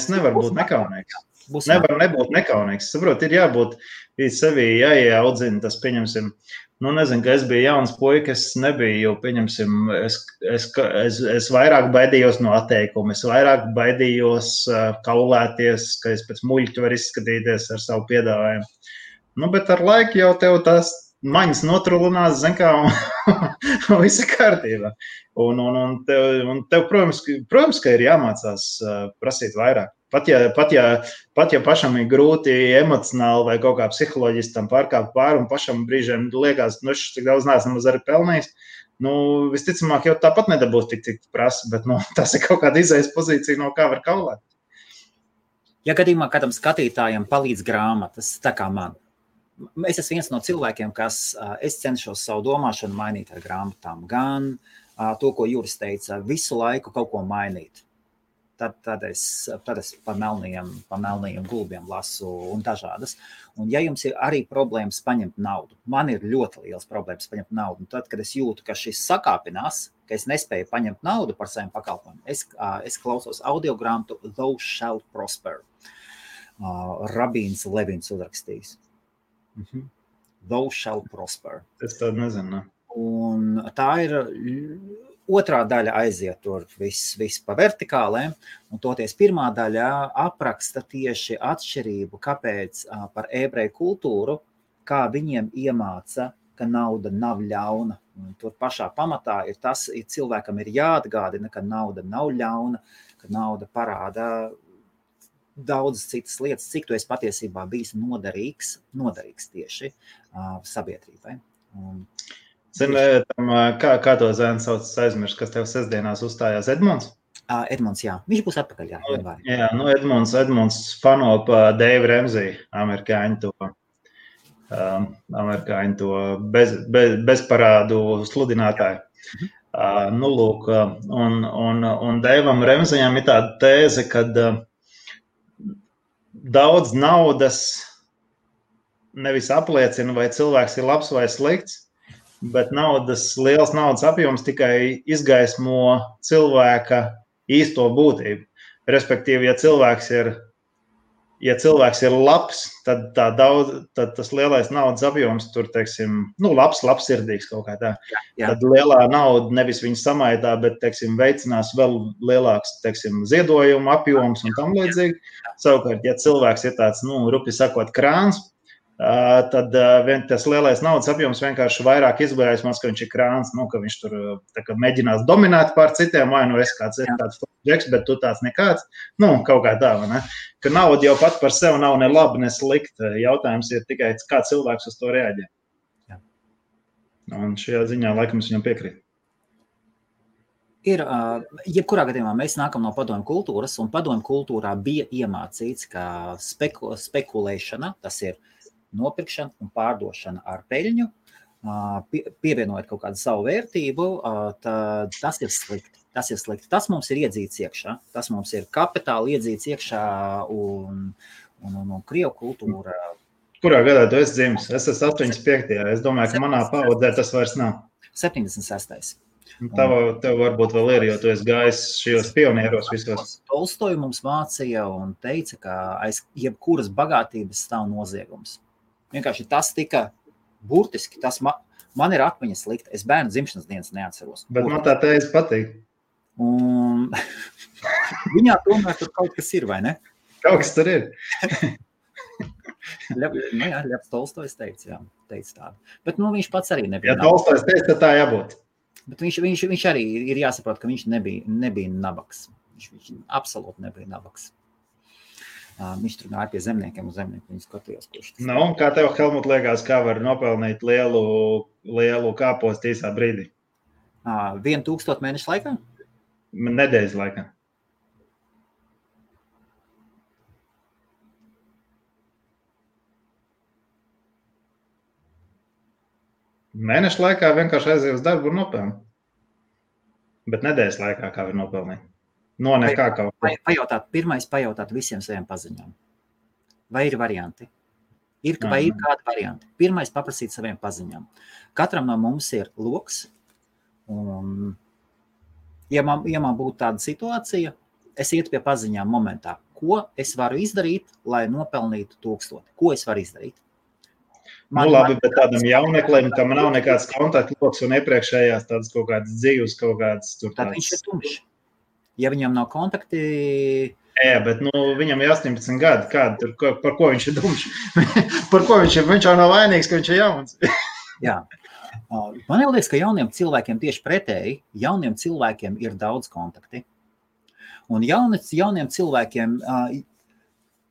nevar būt nekaunīgs. Nevar nebūt nekaunīgs. Saprot, ir jābūt sevī jāieaudzina tas, pieņemsim. Nezinu, ka es biju jauns puika, es nebiju, pieņemsim, es vairāk baidījos no atteikuma, es vairāk baidījos kaulēties, ka es pēc muļķu var izskatīties ar savu piedāvājumu. Bet ar laiku jau tev tas maņas notrulinās, zin kā, un viss ir kārtībā. Un tev, protams, ka ir jāmācās prasīt vairāk. Pat ja pašam ir grūti emocionāli vai kaut kā psiholoģiski tam pārkāpt pāri, un pašam brīžiem liekas, nu, cik daudz neesam arī pelnījis, nu, visticamāk jau tāpat nedabūs tik prasa, bet, nu, tas ir kaut kāda izējas pozīcija, no kā var kaulēt. Ja gadījumā kādam skatītājam palīdz grāmatas, tā kā man, es esmu viens no cilvēkiem, kas es cenšos savu domāšanu mainīt ar grāmatām, gan to, ko Juris teica, visu laiku kaut ko mainīt. Tad es pa melnajiem gulbiem lasu un dažādas. Un ja jums ir arī problēmas paņemt naudu, man ir ļoti liels problēmas paņemt naudu. Un tad, kad es jūtu, ka šis sakāpinās, ka es nespēju paņemt naudu par saviem pakalpojumiem, es klausos audiogrāmatu Thou Shalt Prosper. Rabīns Levins uzrakstījis. Thou Shalt Prosper. Es tādu nezinu. Un tā ir... Otrā daļa aiziet tur viss pa vertikālēm, un toties pirmā daļa apraksta tieši atšķirību, kāpēc par ebreju kultūru, kā viņiem iemāca, ka nauda nav ļauna. Un tur pašā pamatā ir tas, cilvēkam ir jāatgādina, ka nauda nav ļauna, ka nauda parāda daudzas citas lietas, cik tu esi patiesībā bijis noderīgs tieši sabiedrībai. Zini, kā to zēnu sauc, aizmirst, kas tev sestdienās uzstājās, Edmunds? Edmunds, jā. Viņš būs atpakaļ, jā. Jā, nu Edmunds fano pa Dave Ramsey, amerikāņu to bezparādu sludinātāju. Nu, lūk, un Davam Ramseyam ir tāda tēze, kad daudz naudas nevis apliecina, vai cilvēks ir labs vai slikts, bet liels naudas apjoms tikai izgaismo cilvēka īsto būtību. Respektīvi, ja cilvēks ir labs, tad tas lielais naudas apjoms tur, teiksim, nu, labsirdīgs kaut kā tā. Jā. Tad lielā nauda nevis viņu samaidā, bet, teiksim, veicinās vēl lielāks, teiksim, ziedojumu apjoms un tam līdzīgi. Savukārt, ja cilvēks ir tāds, nu, rupi sakot, krāns, tad tas lielais naudas apjoms vienkārši vairāk izgaismos, ka viņš ir krāns, nu, ka viņš tur mēģinās dominēt pār citiem, vai nu es kāds džeks, bet tu tāds nekāds, nu, kaut kā tā, vai ne? Ka nauda jau pat par sevi nav ne labi, ne slikta. Jautājums ir tikai, kā cilvēks uz to reaģē. Jā. Un šajā ziņā laikam es viņam piekrītu. Jebkurā gadījumā mēs nākam no padomju kultūras, un padomju kultūrā bija iemācīts, ka spekulēšana, tas ir nopirkšana un pārdošana ar peļņu, pievienojot kaut kādu savu vērtību, tad tas ir slikti. Tas mums ir iedzīts iekšā. Tas mums ir kapitāli iedzīts iekšā un Krievu kultūra. Kurā gadā tu esi dzimis? Es esmu 85. Es domāju, ka manā paudzē tas vairs nav. 76. Tev varbūt vēl ir, jo tu esi gājis šajos pionieros visos. Tolstoju mums mācīja un teica, ka aiz jebkuras bagātības stāv noziegums. Vienkārši tas tika burtiski, tas man ir atmiņa slikta. Es bērnu dzimšanas dienas neatceros. Bet man tā tēze patīk. Un viņā tomēr tur kaut kas ir, vai ne? Kaut kas tur ir. Ļevs Tolstojs teica tādu. Bet viņš pats arī nebija. Ja Tolstojs teica, tad tā jābūt. Bet viņš arī ir jāsaprot, ka viņš nebija nabaks. Viņš absolūti nebija nabaks. Viņš tur gāja pie zemniekiem un zemnieku viņu skatījās, kurš tas. Nu, kā tev, Helmut, liekas, kā var nopelnīt lielu kāpostu īsā brīdī? 1000 mēnešu laikā? Nedēļas laikā. Mēnešu laikā vienkārši aiziet uz darbu un nopelnīt. Bet nedēļas laikā kā var nopelnīt? No nekā kaut ko. Pirmais pajautāt visiem saviem paziņām. Vai ir varianti? Vai ir kādi varianti? Pirmais paprasīt saviem paziņām. Katram no mums ir loks. Un, ja man būtu tāda situācija, es ietu pie paziņām momentā. Ko es varu izdarīt, lai nopelnītu 1000? Ko es varu izdarīt? Labi, bet tādam jauneklim, kam nav nekāds kontaktloks un iepriekšējās tādas kaut kādas dzīves, kaut kādas tur tādas. Tad viņš ir tumšs. Ja viņam nav kontakti... Jā, bet viņam ir 18 gadi. Par ko viņš ir dumšs? Par ko viņš jau nav vainīgs, ka viņš ir jauns? Jā. Man liekas, ka jauniem cilvēkiem tieši pretēji, jauniem cilvēkiem ir daudz kontakti. Un jauniem cilvēkiem,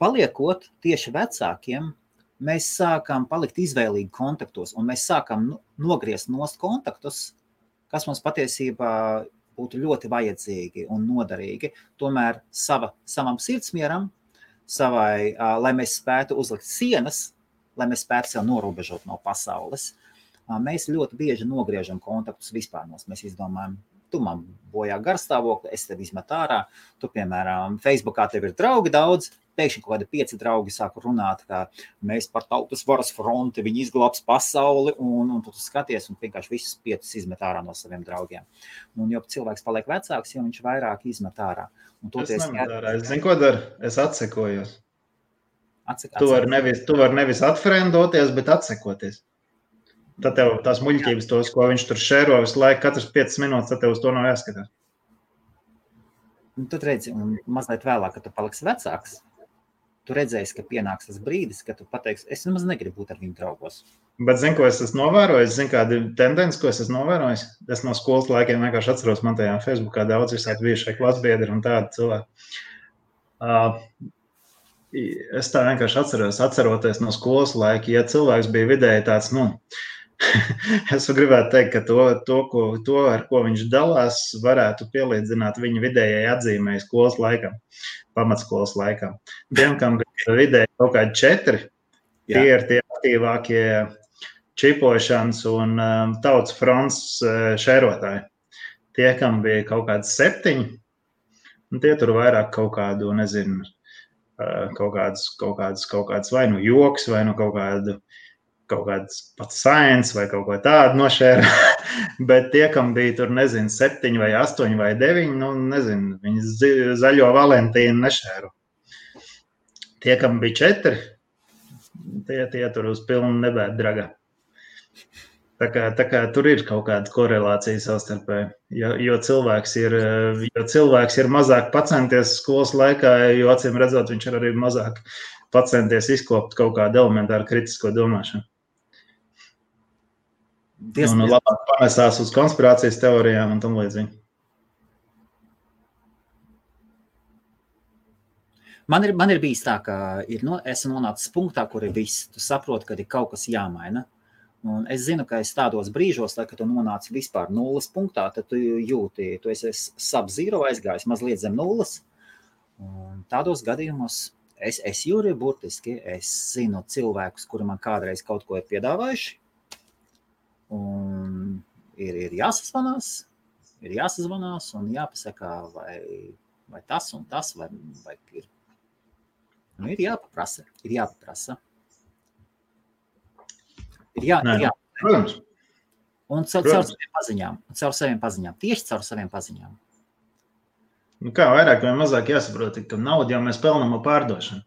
paliekot tieši vecākiem, mēs sākam palikt izvēlīgi kontaktos, un mēs sākam nogriezt nost kontaktus, kas mums patiesībā būtu ļoti vajadzīgi un noderīgi. Tomēr savam sirdsmieram, lai mēs spētu uzlikt sienas, lai mēs spētu sev norobežot no pasaules, mēs ļoti bieži nogriežam kontaktus vispār. Mēs izdomājam, tu man bojā garstāvokli, es tev izmetu ārā, tu, piemēram, Facebookā tev ir draugi daudz, pēkšņi kaut kādi 5 draugi sāku runāt, ka mēs par tautas varas fronti, viņi izglābs pasauli, un tu skaties un vienkārši visus 5 izmet ārā no saviem draugiem. Un jo cilvēks paliek vecāks, jo viņš vairāk izmet ārā. Es nemet ārā, es zinu, ko daru, es atsekojos. Tu vari nevis atfrendoties, bet atsekoties. Tad tev tās muļķības tos, ko viņš tur šēro visu laiku, katrs 5 minūtes, tad tev uz to nav jāskatās. Un tad redzi, un mazliet vēlāk, kad tu paliksi vecāks, tu redzēsi, ka pienāks tas brīdis, kad tu pateiksi, es nemaz negribu būt ar viņu draugos. Bet zinu, ko es esmu novērojis, zinu, kādi tendenci, ko es esmu novērojis. Es no skolas laikiem vienkārši atceros, man tajā Facebookā daudz visādi bijušie klasbiedri un tādi cilvēki. Es tā vienkārši atceroties no skolas laika, ja cilvēks bija vidēji tāds, es gribētu teikt, ka to, ar ko viņš dalās, varētu pielīdzināt viņa vidējai atzīmēji skolas laikam, pamatskolas laikam. Tiem, kam bija vidēji kaut kādi 4, tie ir tie aktīvākie čipošanas un tautas fronts šērotāji. Tie, kam bija kaut kāds 7, un tie tur vairāk kaut kādu, nezinu, kaut kāds vai nu joks, vai nu kaut kāds pats science vai kaut ko tādu nošēra, bet tie, kam bija tur, nezinu, 7 vai 8 vai 9, nezinu, viņi zaļo Valentīnu nešēru. Tie, kam bija 4, tie tur uz pilnu nebēt dragā. Tā kā tur ir kaut kāda korelācija savstarpēji, jo cilvēks ir mazāk pacenties skolas laikā, jo acīm redzot, viņš ir arī mazāk pacenties izkopt kaut kādu elementāru kritisko domāšanu. Un labāk panesās uz konspirācijas teorijām un tam līdzīgi. Man ir bijis tā, ka esmu nonācis punktā, kur ir viss. Tu saproti, ka ir kaut kas jāmaina. Un es zinu, ka es tādos brīžos, kad tu nonāci vispār 0 punktā, tad tu jūti, tu esi sub-zero aizgājis, mazliet zem 0. Un tādos gadījumos es jūri burtiski, es zinu cilvēkus, kuri man kādreiz kaut ko ir piedāvājuši. Un ir jāsazvanās un jāpasaka, vai tas un tas, vai ir. Ir jāpaprasa. Protams. Un caur saviem paziņām. Tieši caur saviem paziņām. Kā vairāk vai mazāk jāsaprot, ka naudu jau mēs pelnām ar pārdošanu.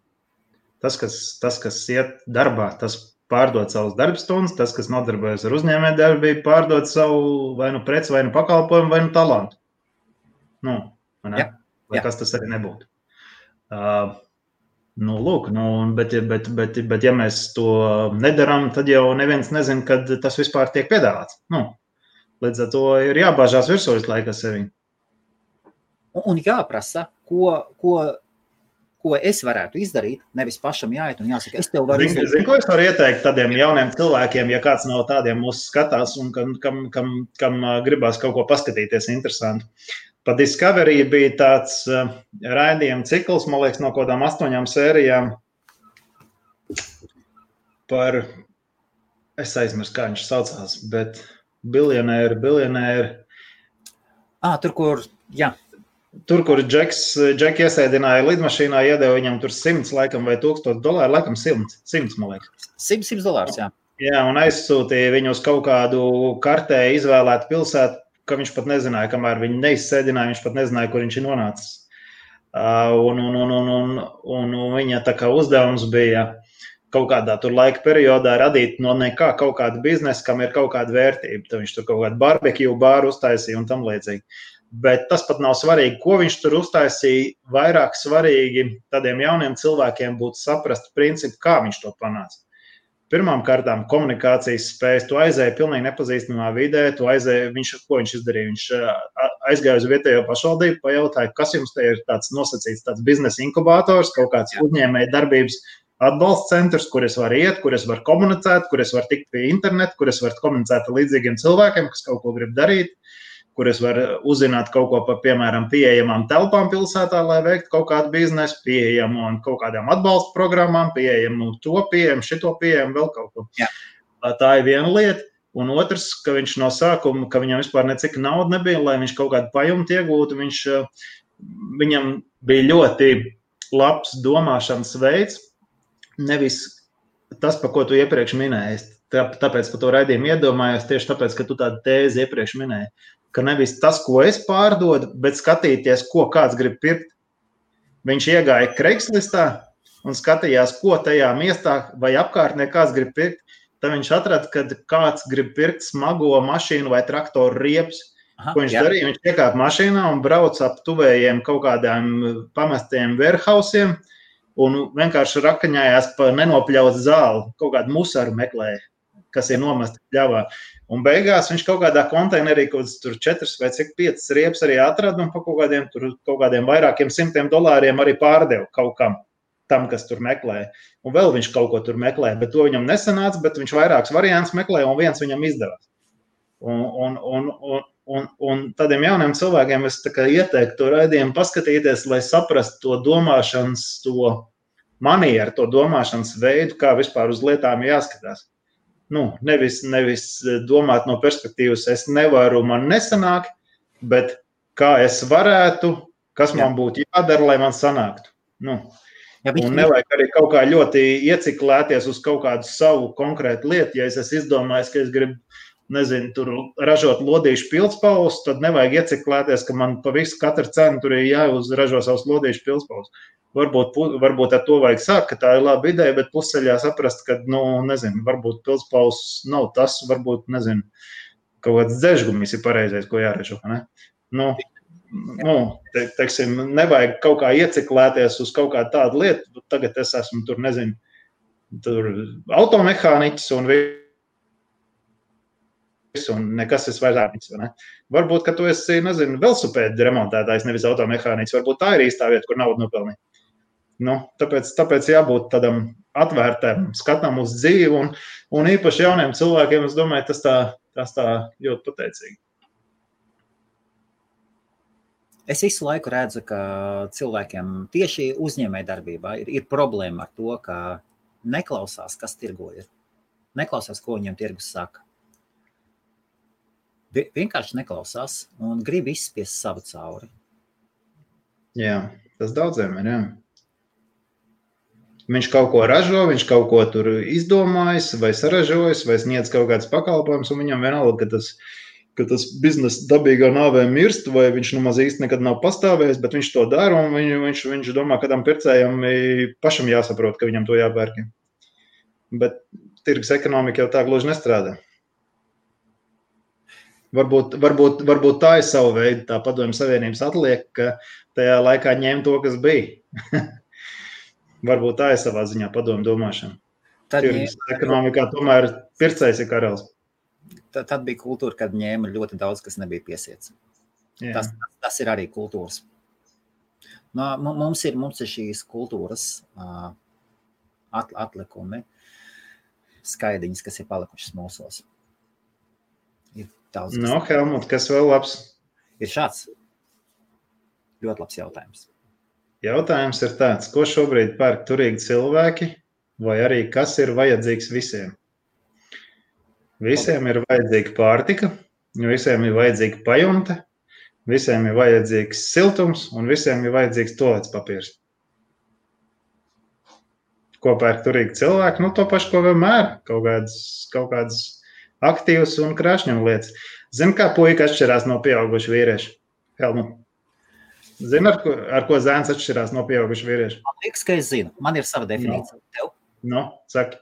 Tas, kas iet darbā, tas pārdod savus darbstundas, tas, kas nodarbojas ar uzņēmējdarbību, pārdod savu vai nu preci, vai nu pakalpojumu, vai nu talantu. Vai kas tas arī nebūtu. Bet ja mēs to nedaram, tad jau neviens nezin, kad tas vispār tiek piedāvāts. Līdz ar to ir jābāžās virsū visu laiku ar sevi. Un jāprasa, ko es varētu izdarīt, nevis pašam jāiet un jāsaka, es tev varu izdarīt. Zini, ko es varu ieteikt tādiem jauniem cilvēkiem, ja kāds no tādiem mūs skatās un kam gribās kaut ko paskatīties interesantu. Pa Discovery bija tāds raidījuma cikls, man liekas, no kādām 8 sērijām par, es aizmirsu, kā viņš saucās, bet biljonēri. Tur, kur Džeki iesēdināja lidmašīnā, iedeva viņam tur 100 laikam vai $1000, laikam 100, man liekas. $100, jā. Jā, un aizsūtīja viņu uz kaut kādu kartē izvēlētu pilsētu, ka viņš pat nezināja, kamēr viņi neizsēdināja, viņš pat nezināja, kur viņš ir nonācis. Un viņa tā kā uzdevums bija kaut kādā tur laika periodā radīt no nekā kaut kādu biznesu, kam ir kaut kāda vērtība. Tad viņš tur kaut kādu barbecue bāru uztaisīja un tam līdzīgi. Bet tas pat nav svarīgi, ko viņš tur uztaisīja. Vairāk svarīgi tādiem jauniem cilvēkiem būtu saprast principu, kā viņš to panāca. pirmām kārtām komunikācijas spējas. Tu aizēji pilnīgi nepazīstamā vidē, ko viņš izdarīja? Viņš aizgāja uz vietējo pašvaldību, pajautāja, kas jums te ir tāds nosacīts, tāds biznesa inkubators, kaut kāds uzņēmēja darbības atbalsta centrs, kur es varu iet, kur es varu komunicēt, kur es varu tikt pie interneta, kur es varu komunicēt ar līdzīgiem cilvēkiem, kas kaut ko grib darīt, kur es varu uzzināt kaut ko par, piemēram, pieejamām telpām pilsētā, lai veiktu kaut kādu biznesu, pieejamu un kaut kādām atbalsta programmām, pieejamu to pieejamu, šito pieejamu, vēl kaut ko. Jā. Tā ir viena lieta. Un otrs, ka viņš no sākuma, ka viņam vispār necik nauda nebija, lai viņš kaut kādu pajumtu iegūtu, viņam bija ļoti labs domāšanas veids, nevis tas, par ko tu iepriekš minēji. Tāpēc par to raidījumu iedomājos, tieši tāpēc, ka tu tādu tēzi iepriekš minēji. Ka nevis tas, ko es pārdodu, bet skatīties, ko kāds grib pirkt. Viņš iegāja Craigslistā un skatījās, ko tajā miestā vai apkārtnē kāds grib pirkt. Tad viņš atrada, ka kāds grib pirkt smago mašīnu vai traktoru riepus. Ko viņš darīja? Viņš iekāpa mašīnā un brauca ap tuvējiem kaut kādām pamestiem warehousiem un vienkārši rakaņājās pa nenopļaut zāli, kaut kādu musaru meklēja, kas ir nomesta pļavā. Un beigās viņš kaut kādā konteinerī, kaut tur 4 vai 5 riepas arī atrada un pa kaut kādiem vairākiem $100 arī pārdeva kaut kam, tam, kas tur meklēja. Un vēl viņš kaut ko tur meklēja, bet to viņam nesanāca, bet viņš vairākus variantus meklēja un viens viņam izdevās. Un tādiem jauniem cilvēkiem es tā kā ieteiktu to raidījumu paskatīties, lai saprastu to domāšanas, to manieru, to domāšanas veidu, kā vispār uz lietām jāskatās. Nevis domāt no perspektīvas, es nevaru, man nesanāk, bet kā es varētu, kas man būtu jādara, lai man sanāktu. Un nevajag arī kaut kā ļoti ieciklēties uz kaut kādu savu konkrētu lietu. Ja es esmu izdomājis, ka es gribu, tur ražot lodīšu pildspalvus, tad nevajag ieciklēties, ka man pa visu katru cenu tur ir jāuzražo savus lodīšu pildspalvus. Varbūt ar to vajag sākt, ka tā ir laba ideja, bet pusceļā saprast, ka, varbūt pildspalvs nav tas, varbūt, kaut kāds dzežgumis ir pareizais, ko jāražo, ne? Teiksim, nevajag kaut kā ieciklēties uz kaut kādu tādu lietu, tagad es esmu tur automehāniķis un nekas es vairs ne? Varbūt, ka tu esi, velosipēdu remontētājs, nevis automehāniķis, varbūt tā ir īstā vieta, kur naudu nopelnīt. Tāpēc jābūt tādam atvērtam skatam uz dzīvi un īpaši jauniem cilvēkiem, es domāju, tas tā ļoti pateicīgi. Es visu laiku redzu, ka cilvēkiem tieši uzņēmējdarbībā ir problēma ar to, ka neklausās, kas tirgo ir. Neklausās, ko viņam tirgus saka. Vienkārši neklausās un grib izspiest savu cauri. Jā, tas daudziem ir, jā. Viņš kaut ko ražo, viņš kaut ko tur izdomājis vai saražojis vai sniedz kaut kāds pakalpojums un viņam vienalga, ka tas biznesa dabīgā nāvē mirst vai viņš nemaz īsti nekad nav pastāvējis, bet viņš to dara un viņš domā, ka tam pircējam pašam jāsaprot, ka viņam to jāpērk. Bet tirgus ekonomika jau tā gluži nestrādā. Varbūt tā ir sava veida, tā Padomju Savienības atliek, ka tajā laikā ņem to, kas bija. Varbūt tā ir savā ziņā padomu domāšana. Tirgus ekonomikā tomēr pircējs ir karalis. Tad bija kultūra, kad ņēma ļoti daudz, kas nebija piesiets. Tas ir arī kultūras. Mums ir šīs kultūras atlikumi, skaidiņas, kas ir palikušas mūsos. Ir daudz. Helmut, kas vēl labs? Ir šāds ļoti labs jautājums. Jautājums ir tāds, ko šobrīd pērk turīgi cilvēki, vai arī kas ir vajadzīgs visiem? Visiem ir vajadzīga pārtika, visiem ir vajadzīga pajumte, visiem ir vajadzīgs siltums un visiem ir vajadzīgs tualetes papīrs. Ko pērk turīgi cilvēki? To pašu, ko vienmēr, kaut kādas aktīvas un krāšņuma lietas. Zini, kā puika atšķirās no pieauguša vīrieša? Helmut. Zini, ar ko zēns atšķirās no pieauguša vīrieša? Man liekas, ka es zinu. Man ir sava definīcija. Tev? Saki.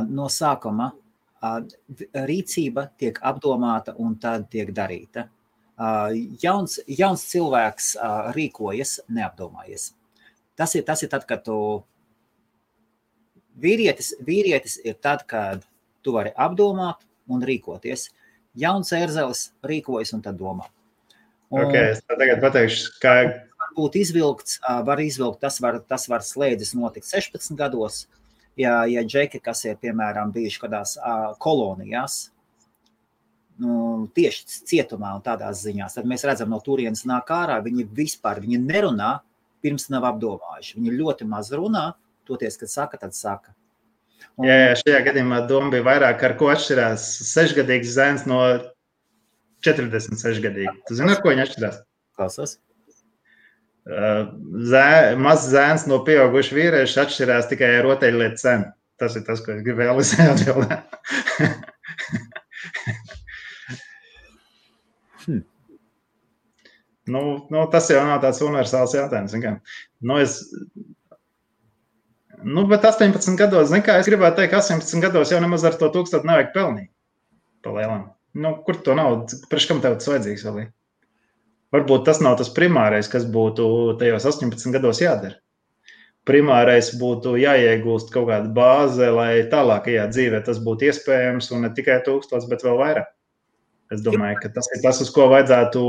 No sākuma rīcība tiek apdomāta un tad tiek darīta. Jauns cilvēks rīkojas neapdomājies. Tas ir tad, kad tu Vīrietis ir tad, kad tu vari apdomāt un rīkoties. Jauns ērzelis rīkojas un tad domā. Es tagad pateikšu, kā... Varbūt var izvilkt, tas var slēdzis notikt 16 gados, ja džeki, kas ir, piemēram, bijuši kādās kolonijās, tieši cietumā un tādās ziņās, tad mēs redzam, no turienes nāk ārā, viņi nerunā, pirms nav apdomājuši. Viņi ļoti maz runā, toties, kad saka, tad saka. Jā, šajā gadījumā doma bija vairāk, ar ko atšķirās 6-gadīgs zēns no 46-gadīgi. Tu zini, ar ko viņi atšķirās? Klausos. Mazs zēns no pieauguša vīrieša atšķirās tikai ar rotaļlietu cenu. Tas ir tas, ko es gribēju atbildēt. Tas jau nav tāds universāls jautājums. Bet 18 gados, es gribētu teikt, ka 18 gados jau nemaz ar to 1000 nevajag pelnīt. Palielam. Kur to naudu? Priekš kam tev tas vajadzīgs vēl? Varbūt tas nav tas primārais, kas būtu tajos 18 gados jādara. Primārais būtu jāiegūst kaut kāda bāze, lai tālākajā dzīvē tas būtu iespējams un ne tikai 1000, bet vēl vairāk. Es domāju, ka tas ir tas, uz ko vajadzētu,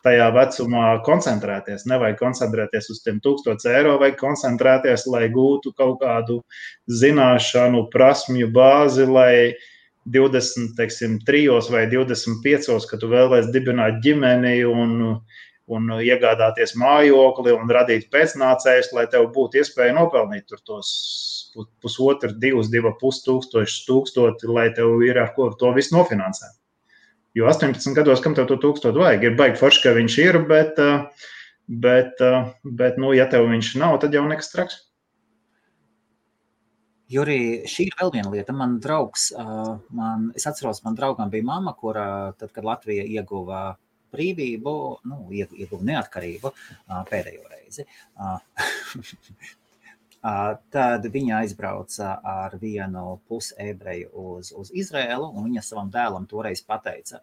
tajā vecumā koncentrēties. Nevajag koncentrēties uz tiem 1000 eiro, vajag koncentrēties, lai gūtu kaut kādu zināšanu, prasmju bāzi, lai 23 vai 25, kad tu vēlēs dibināt ģimeni un iegādāties mājokli un radīt pēcnācējus, lai tev būtu iespēja nopelnīt tur tos 1,5, 2,5 tūkstoši, lai tev ir ar ko to visu nofinansēt. Jo 18 gados, kam tev to 1000 vajag, ir baigi forši, ka viņš ir, bet ja tev viņš nav, tad jau nekas traks. Juri, šī ir vēl viena lieta. Man draugs, es atceros, man draugam bija mamma, kura tad, kad Latvija ieguva brīvību, ieguva neatkarību pēdējo reizi, tad viņa aizbrauca ar vienu pusebreju uz Izraēlu, un viņa savam dēlam toreiz pateica,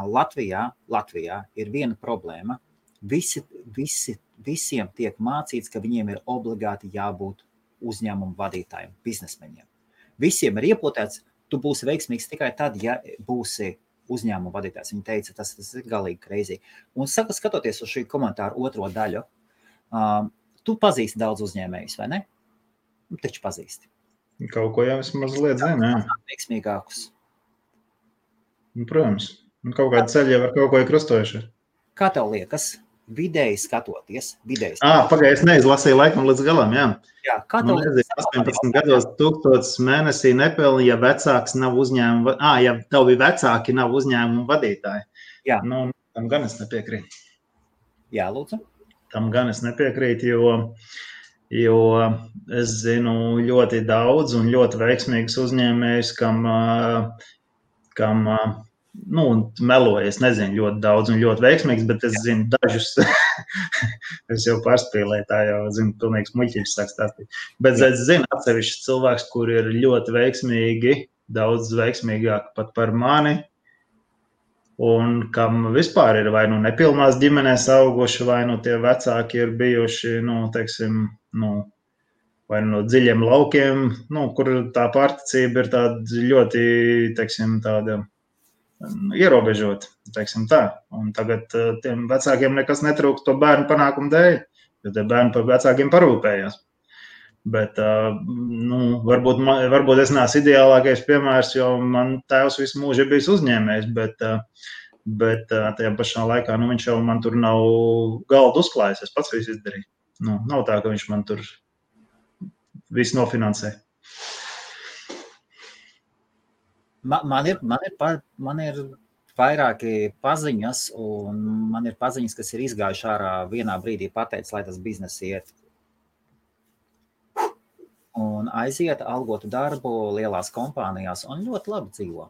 Latvijā ir viena problēma. Visiem tiek mācīts, ka viņiem ir obligāti jābūt uzņēmumu vadītājiem, biznesmeņiem. Visiem ir iepotēts, tu būsi veiksmīgs tikai tad, ja būsi uzņēmumu vadītājs. Viņa teica, tas ir galīgi crazy. Un skatoties uz šī komentāru otro daļu, tu pazīsti daudz uzņēmējus, vai ne? Taču pazīsti. Kaut ko jau es mazliet zinu, jā. Veiksmīgākus. Protams. Kaut kāda ceļa jau ar kaut ko ir krustojuši. Kā tev liekas, vidēji skatoties? Pagaid, es neizlasīju laikam līdz galam, jā. Jā, kā tev liekas? 18 gados 1000 mēnesī nepelni, ja vecāks nav uzņēmuma, ja tev vecāki nav uzņēmuma vadītāji. Jā. Tam gan es nepiekrītu. Jā, lūdzu. Tam gan es nepiekrītu, jo es zinu ļoti daudz un ļoti veiksmīgus uzņēmējus, kam meloju, es nezinu ļoti daudz un ļoti veiksmīgs, bet es zinu dažus, es jau pārspīlēju, tā jau zinu, pilnīgs muļķības sāk stāstīt. Bet es zinu atsevišķus cilvēkus, kuri ir ļoti veiksmīgi, daudz veiksmīgāk pat par mani, un kam vispār ir vai nepilnās ģimenēs auguši, vai tie vecāki ir bijuši, vai no dziļiem laukiem, kur tā pārticība ir tāda ļoti, tāda ierobežot, tā. Un tagad tiem vecākiem nekas netrūkst to bērnu panākumu dēļ, jo tie bērni par vecākiem parūpējās. Bet varbūt es neesmu ideālākais piemērs, jo man tēvs visu mūžu ir bijis uzņēmējs, bet tajā pašā laikā viņš jau man tur nav galdu uzklājis, es pats visu izdarīju. Nav tā, ka viņš man tur visu nofinansē. Man ir vairāki paziņas, un man ir paziņas, kas ir izgājuši ārā vienā brīdī pateicis, lai tas biznes iet. Un aiziet algotu darbu lielās kompānijās, un ļoti labi dzīvo.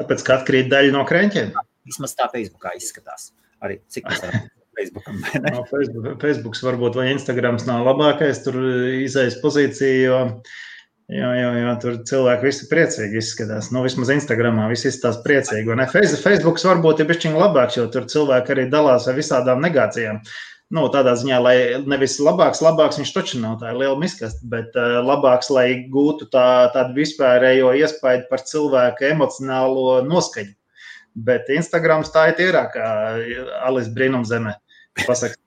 Tāpēc, ka atkrīt daļa no kreņķiem? Vismaz tā Facebookā izskatās. Arī cik tas var Facebookam, vai ne? Facebooks varbūt vai Instagrams nav labākais, tur izejas pozīcija, jo tur cilvēki visi priecīgi izskatās. Vismaz Instagramā visi izskatās priecīgi. Facebooks varbūt ir bišķiņ labāks, jo tur cilvēki arī dalās ar visādām negācijām. Nu, tādā ziņā, lai nevis labāks, viņš taču nav tā liela miskasta, bet labāks, lai gūtu tādu vispārējo iespaidu par cilvēku emocionālo noskaņu. Bet Instagrams tā ir tīrākā Alice brīnumzemē. Pasaka.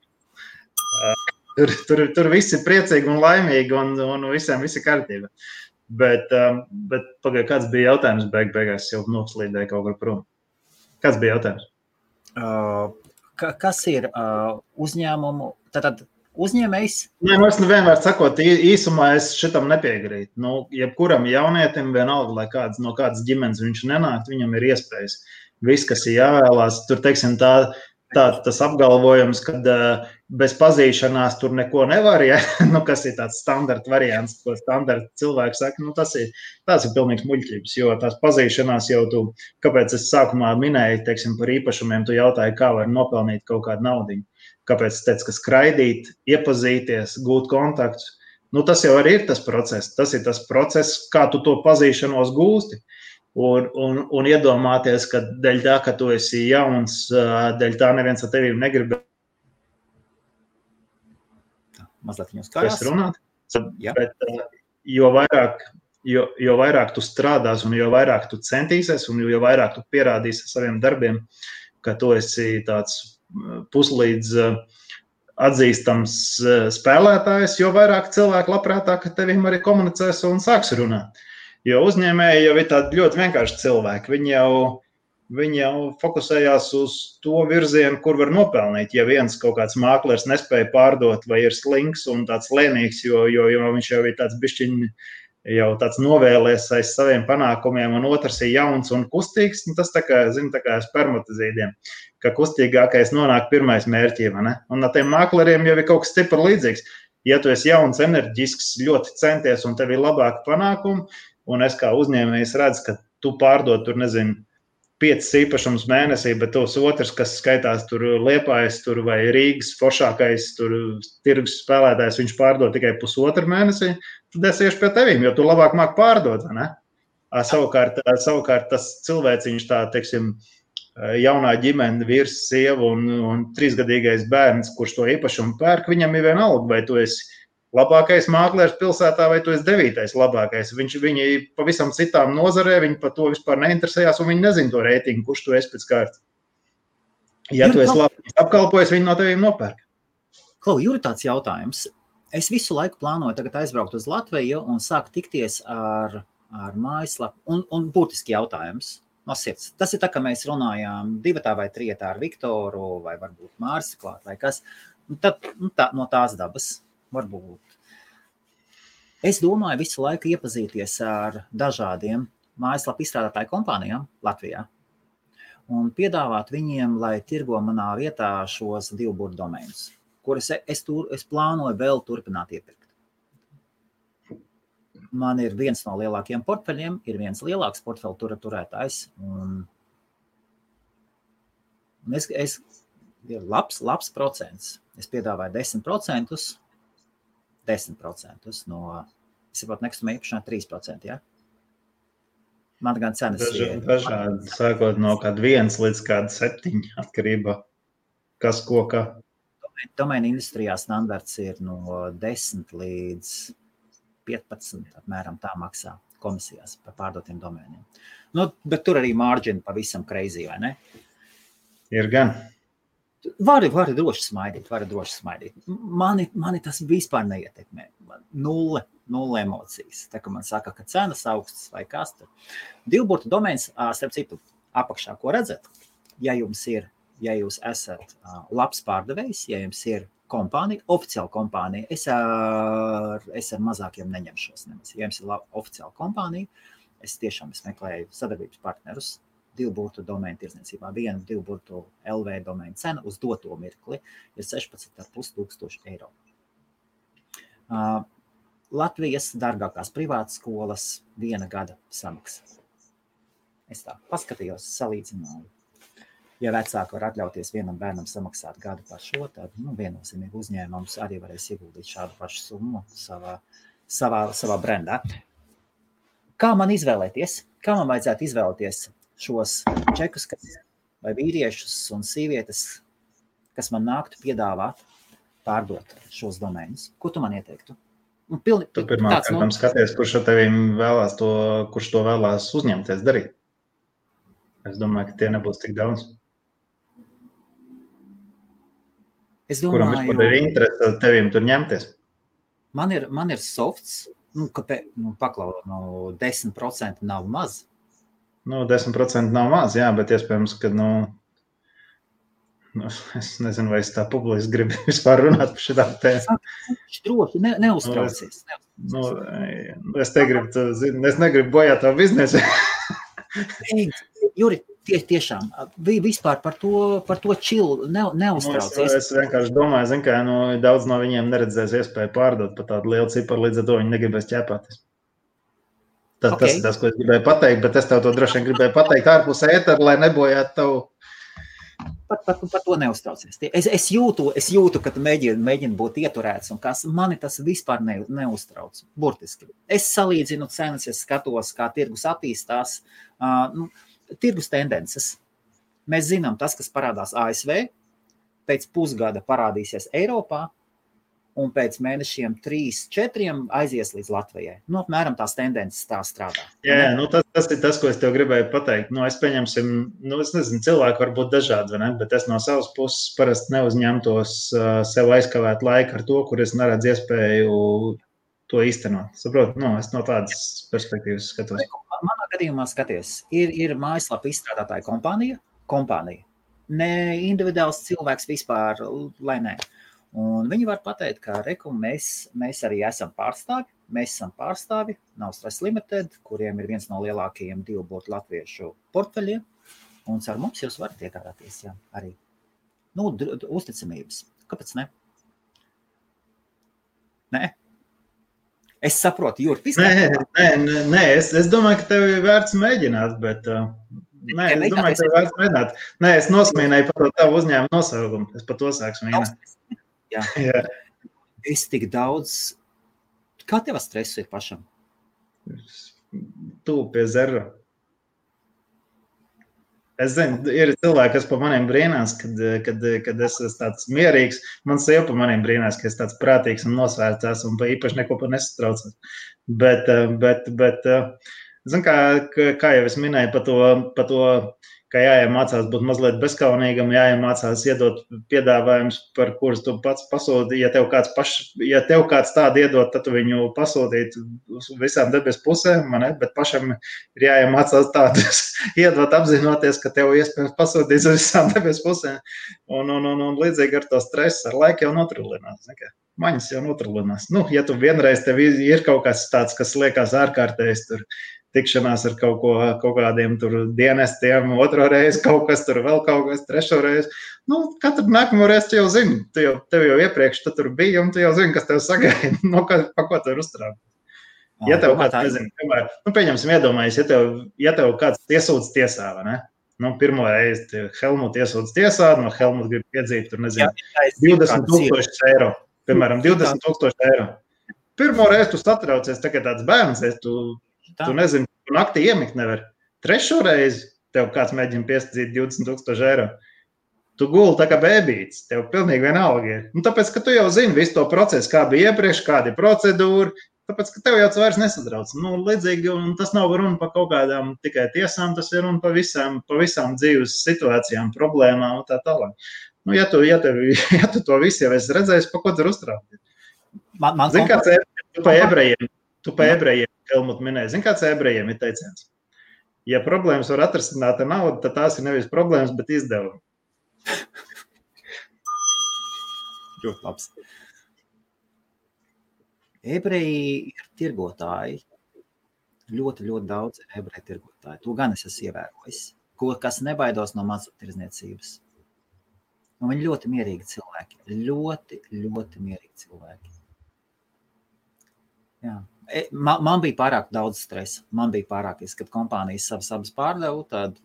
Tur viss ir priecīgi un laimīgi un visiem viss ir kārtība. Bet pagaid, kāds bija jautājums beigās, jau noslīdēja kaut kur prom. Kāds bija jautājums? Kas ir uzņēmumu, tātad uzņēmējs? Nē, es vienmēr sakot, īsumā es šitam nepiegrītu. Nu, jebkuram jaunietim vienalga, lai no kādas ģimenes viņš nenāk, viņam ir iespējas. Viss, kas ir jāvēlās, tur, teiksim, tas apgalvojums, kad bez pazīšanās tur neko nevar, ja? Nu, kas ir tāds standarta variants, ko standarta cilvēki saka, nu, tas ir pilnīgs muļķības, jo tās pazīšanās jau kāpēc es sākumā minēju, teiksim, par īpašumiem, tu jautāji, kā var nopelnīt kaut kādu naudiņu, kāpēc es teicu, ka skraidīt, iepazīties, gūt kontaktus, nu, tas jau arī ir tas process, kā tu to pazīšanos gūsti. Un iedomāties, ka dēļ tā, ka tu esi jauns, dēļ tā neviens ar tevīm negrib mazliet viņus karās. Runāt. Bet, jo vairāk tu strādās un jo vairāk tu centīsies un jo vairāk tu pierādīsi saviem darbiem, ka tu esi tāds puslīdz atzīstams spēlētājs, jo vairāk cilvēku labprātāk ar tevīm arī komunicēs un sāks runāt. Jo uzņēmēji jau ir tādi ļoti vienkārši cilvēki. Viņi jau fokusējās uz to virzienu, kur var nopelnīt. Ja viens kaut kāds māklers nespēja pārdot vai ir slings un tāds lēnīgs, jo viņš jau ir tāds bišķiņ, jau tāds novēlēs aiz saviem panākumiem, un otrs ir jauns un kustīgs, un tas tā kā spermatozīdiem, ka kustīgākais nonāk pirmais mērķī, vai ne? Un ar tiem mākleriem jau ir kaut kas stipri līdzīgs. Ja tu esi jauns, enerģisks, ļoti centies un tev ir labāki panākumi, un es kā uzņēmējs redzu, ka tu pārdod tur, 5 īpašums mēnesī, bet tos otrs, kas skaitās tur Liepājas tur vai Rīgas foršākais tur tirgus spēlētājs, viņš pārdod tikai pusotru mēnesī, tad es iešu pie tevīm, jo tu labāk māk pārdot, ne? Savukārt tas cilvēciņš tā, teiksim, jaunā ģimene, vīrs, sieva un 3-gadīgais bērns, kurš to īpašumu pērk, viņam ir vienalga, vai tu esi labākais māklers pilsētā, vai tu esi 9. labākais. Viņi pavisam citām nozarē, viņi par to vispār neinteresējās, un viņi nezin to reitingu, kurš tu esi pēc kārtas. Ja tu esi labi apkalpojis, viņi no tevīm nopērk. Klau, Juri, tāds jautājums. Es visu laiku plānoju tagad aizbraukt uz Latviju un sāku tikties ar mājaslapu, un būtiski jautājums no sirds. Tas ir tā, ka mēs runājām 2 vai 3 ar Viktoru, vai varbūt Māris klāt, vai kas. No tās dabas. Varbūt. Es domāju visu laiku iepazīties ar dažādiem mājaslapu izstrādātāju kompānijām Latvijā un piedāvāt viņiem, lai tirgo manā vietā šos 2 burtu domēnus, kurus es plānoju vēl turpināt iepirkt. Man ir viens no lielākiem portfeļiem, ir viens lielāks portfeļu turētājs, un ir labs procents. Es piedāvāju 10%, 10% no, es saprotu, nekustamā īpašumā 3%, ja? Man gan cenas ir... Dažādi, sākot no kāda 1 līdz kāda 7 atkarībā, kas ko kā. Domēna industrijā standarts ir no 10 līdz 15, apmēram tā maksā komisijās par pārdotiem domēniem. Nu, bet tur arī margin pavisam crazy, vai ne? Ir gan. Vari droši smaidīt. Mani tas vispār neietekmē. Nulle emocijas. Tā kā man saka, ka cenas augstas vai kas tur. 2 burtu domēns, starp citu, apakšā, ko redzat, ja jūs esat labs pārdevējs, ja jums ir kompānija, oficiāla kompānija, es ar mazākiem neņemšos nemaz. Ja jums ir oficiāla kompānija, es meklēju sadarbības partnerus, 2 burtu domēnu tirdzniecībā. 1 2 burtu LV domēnu cena uz doto mirkli ir 16,5 eiro. Latvijas dārgākās privātas skolas 1 gada samaksa. Es tā paskatījos, salīdzināju. Ja vecāki var atļauties vienam bērnam samaksāt gadu par šo, tad viennozīmīgi uzņēmums arī varēs ieguldīt šādu pašu summu savā brendā. Kā man izvēlēties? Kā man vajadzētu izvēlēties šos čekus vai vīriešus un sievietes, kas man nāktu piedāvāt pārdot šos domēnus? Ko tu man ieteiktu? Tu pirmā kārtām skaties, kurš to vēlās uzņemties darīt. Es domāju, ka tie nebūs tik daudz. Kuram vispār ir interese tevim tur ņemties? Man ir softs, paklaut, 10% nav maz. 10% nav maz, jā, bet iespējams, ka, es nezinu, vai es tā publiski gribu vispār runāt par šitām tēmām. Droši, neuztraucies. Es negribu bojāt tavu biznesu. Juri, tiešām, vispār par to čilu neuztraucies. Es vienkārši domāju, ka daudz no viņiem neredzēs iespēju pārdot par tādu lielu ciparu, līdz ar to viņi negribēs ķēpāties. Tas ir tas, ko es gribēju pateikt, bet es tev to droši vien gribēju pateikt ārpus ētera, lai nebojātu tavu. Par to neuztraucies. Es jūtu, ka tu mēģini būt ieturēts, un mani tas vispār neuztrauc. Burtiski. Es salīdzinu cenas, es skatos, kā tirgus attīstās. Tirgus tendences. Mēs zinām, tas, kas parādās ASV, pēc pusgada parādīsies Eiropā, un pēc mēnešiem 3-4 aizies līdz Latvijai. Apmēram tās tendences tā strādā. Jā, tas ir tas, ko es tev gribēju pateikt. Es pieņemsim, es nezinu, cilvēki var būt dažādi, vai ne? Bet es no savas puses parasti neuzņemtos sev aizkavēt laiku ar to, kur es neredzu iespēju to īstenot. Saprot? Es no tādas perspektīvas skatos. Manā gadījumā skaties, ir mājaslapa izstrādātāja kompānija. Ne individuāls cilvēks vispār, lai ne. Un viņi var pateikt, ka mēs arī esam pārstāvi. Mēs esam pārstāvi, nav Stress Limited, kuriem ir viens no lielākajiem divburtu latviešu portfeļiem. Un ar mums jūs varat iegādāties, jā, arī. Uzticamības. Kāpēc ne? Nē? Es saprotu, Jurti. Nē, es domāju, ka tev ir vērts mēģināt, bet... es domāju, ka tev ir vērts mēģināt. Nē, es nosmīnēju par tavu uzņēmumu nosaukumu. Es par to sāku smīnēt. Jā. Es tik daudz... Kā tev stresu ir pašam? Tu pie zera. Es zinu, ir cilvēki, kas pa maniem brīnās, kad es esmu tāds mierīgs. Man sieva pa maniem brīnās, ka es tāds prātīgs un nosvērts un īpaši neko par nesatraucos. Bet zinu, kā jau es minēju par to, ka jāiemācās būt mazliet bezkaunīgam, jāiemācās iedot piedāvājumus, par kurus tu pats pasūti. Ja tev kāds tādu iedot, tad tu viņu pasūtīt visām debes pusēm, bet pašam ir jāiemācās tādus iedot apzinoties, ka tev iespējams pasūtīs uz visām debes pusēm. Un līdzīgi ar to stresu ar laiku jau notrullinās. Maņas jau notrullinās. Ja tu vienreiz tev ir kaut kas tāds, kas liekas ārkārtējs tur, tikšanās ar kaut kādiem tur dienestiem, otro reizi kaut kas tur, vēl kaut kas, trešo reizi. Katru nākamo reizi tu jau zini, tev jau iepriekš tu tur bija, un tu jau zini, kas tev sagaida, pa ko tu ir uztraukt. Ja tev kāds, nezinu, piemēram, pieņemsim iedomājies, ja tev kāds iesūdz tiesā, vai ne? Pirmo reizi Helmut iesūdz tiesā, no Helmut grib piedzīt, tur nezinu, 20,000 eiro. Piemēram, 20,000 eiro. Pirmo reizi tu satraucies, tā kā tāds bērns, tu nezini, tu naktī iemikt nevar. Trešo reizi tev kāds mēģina piesadzīt 20,000 eiro. Tu guli tā kā bēbīts, tev pilnīgi vienalga ir. Tāpēc, ka tu jau zini visu to procesu, kā bija iepriekš, kāda ir procedūra, tāpēc, ka tev jau vairs nesatrauc. Līdzīgi, un tas nav runa par kaut kādām tikai tiesām, tas ir runa par visām dzīves situācijām, problēmām un tā tālāk. Ja tu to visu jau esi redzējis, pa ko tur uztraukt? Zini, kāds tu pa ebrejiem, Helmut minēja, zini, kāds ebrejiem ir teiciens? Ja problēmas var atrisināt ar naudu, tad tās ir nevis problēmas, bet izdevumi. Ļoti labs. Ebreji ir tirgotāji. Ļoti, ļoti daudz ebreju tirgotāji. To gan es esmu ievērojis. Kas nebaidos no mazumtirdzniecības. Viņi ļoti mierīgi cilvēki. Ļoti, ļoti mierīgi cilvēki. Jā. Man bija pārāk daudz stresa. Man bija pārāk, kad kompānijas savas abas pārdevu, tad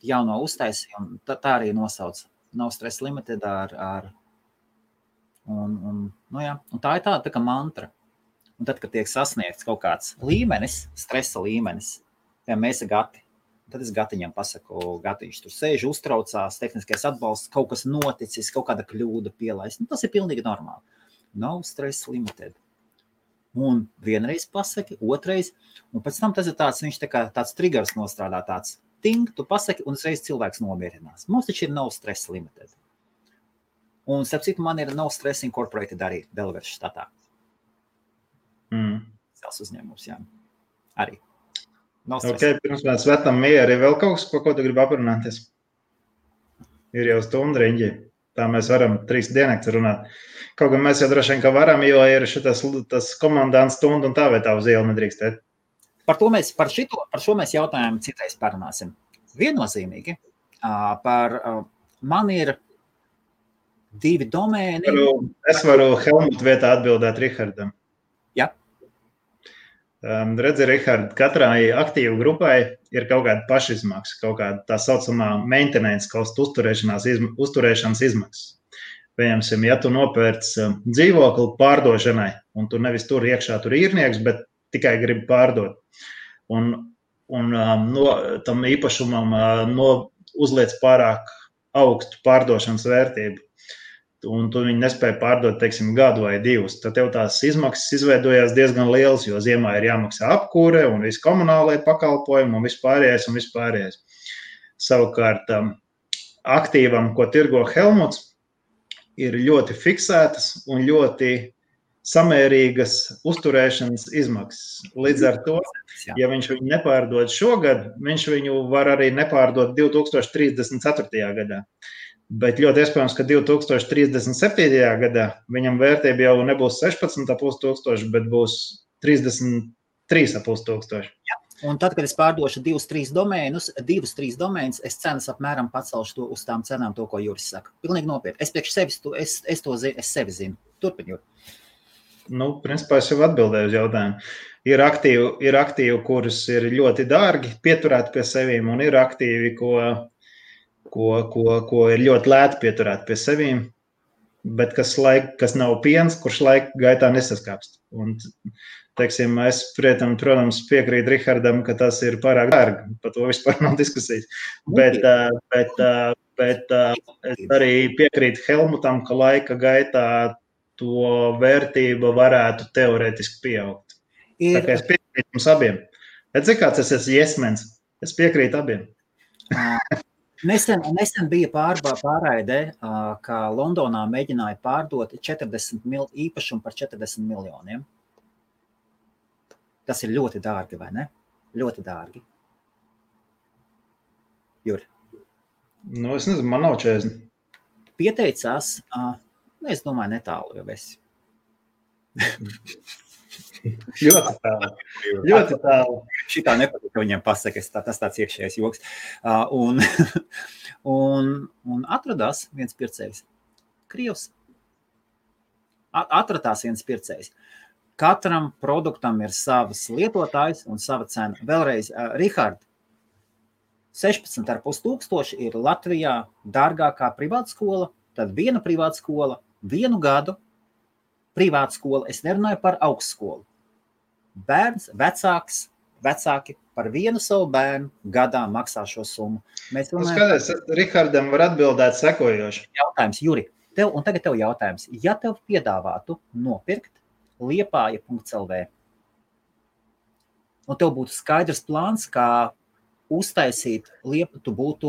jauno uztaisījumu, tā arī nosauc. Nav Stress Limited un tā ir tā kā mantra. Un tad, kad tiek sasniegts kaut kāds līmenis, stresa līmenis, ja mēs esam gati, Tad es Gatiņam pasaku, Gatiņš tur sēž, uztraucās, tehniskais atbalsts, kaut kas noticis, kaut kāda kļūda pielaist. Tas ir pilnīgi normāli. No stress limited. Un vienreiz pasaki, otrais, un pēc tam tas ir tāds, viņš tāds triggers nostrādā, tāds ting, tu pasaki, un uzreiz cilvēks nomierinās. Mums taču ir no stress limited. Un, starp citu, man ir no stress incorporated arī Delaware štatā. Sels uzņēmums, jā. Arī. No stress. Ok, pirms mēs svetam mieri, vēl kaut kas, ko tu gribi aprunāties? Ir jau stundu riņģi. Tā mēs varam 3 diennakts runāt. Kaut gan mēs jau droši vien, ka varam, jo ir tas komandants stundu un tā vai tā uz ielu nedrīkstēt. Par šo mēs jautājumu citreiz parunāsim. Viennozīmīgi. Man ir 2 domēni. Es varu Helmut vietā atbildēt Rihardam. Jā. Redzi, Rihard, katrai aktīvu grupai ir kaut kāda pašizmaksa, kaut kāda tā saucamā maintenance cost uzturēšanas izmaksas. Piemēram, ja tu nopērc dzīvokli pārdošanai, un tu nevis tur iekšā tur īrnieks, bet tikai gribi pārdot. Un tam īpašumam uzliec pārāk augstu pārdošanas vērtību. Un tu viņu nespēji pārdot, teiksim, gadu vai 2. Tad tev tās izmaksas izveidojās diezgan lielas, jo ziemā ir jāmaksā apkūre un viss komunālai pakalpojumi un vispārējais. Savukārt aktīvam, ko tirgo Helmuts, ir ļoti fiksētas un ļoti samērīgas uzturēšanas izmaksas. Līdz ar to, ja viņš viņu nepārdod šogad, viņš viņu var arī nepārdot 2034. gadā. Bet ļoti iespējams, ka 2037. gadā viņam vērtība jau nebūs 16,5 tūkstoši, bet būs 33,5 tūkstoši. Ja. Un tad, kad es pārdošu 2-3 domēnus, es cenas apmēram pacelšu to uz tām cenām, to, ko Juris saka. Pilnīgi nopietni. Es priekš sevis, es sevi zinu. Turpin, Juri. Principā es jau atbildēju uz jautājumu. Ir aktīvi, kurus ir ļoti dārgi pieturēt pie sevīm, un ir aktīvi, ko ir ļoti lēti pieturēt pie sevīm, bet kas nav piens, kurš laika gaitā nesaskāpst. Un, teiksim, es, protams, piekrītu Rihardam, ka tas ir pārāk dārgi, par to vispār nav diskusijas. Bet es arī piekrītu Helmutam, ka laika gaitā to vērtība varētu teorētiski pieaugt. Tā kā es piekrītu jums abiem. Bet cik kāds es esmu jesmens? Es piekrītu abiem. Nesen bija pārraidē, ka Londonā mēģināja pārdot īpašumu par 40 miljoniem. Tas ir ļoti dārgi, vai ne? Ļoti dārgi. Juri? Es nezinu, man nav 40. Pieteicās, es domāju, netālu jau esi. Ļoti tālu. Šitā nepatīk, ka viņiem pasaka, tas tāds iekšējais joks. Un atradās viens pircējs. Krievs. Atradās viens pircējs. Katram produktam ir savs lietotājs un sava cena. Vēlreiz, Rihard, 16,5 tūkstoši ir Latvijā dārgākā privātskola, tad viena privātskola, 1 gadu privātskola, es nerunāju par augstskolu. Bērns, vecāki par vienu savu bērnu gadā maksā šo summu. Skaties, Rihardam var atbildēt sekojoši. Jautājums, Juri, un tagad tev jautājums. Ja tev piedāvātu nopirkt Liepāja.lv un tev būtu skaidrs plāns, kā uztaisīt Liepu, tu būtu,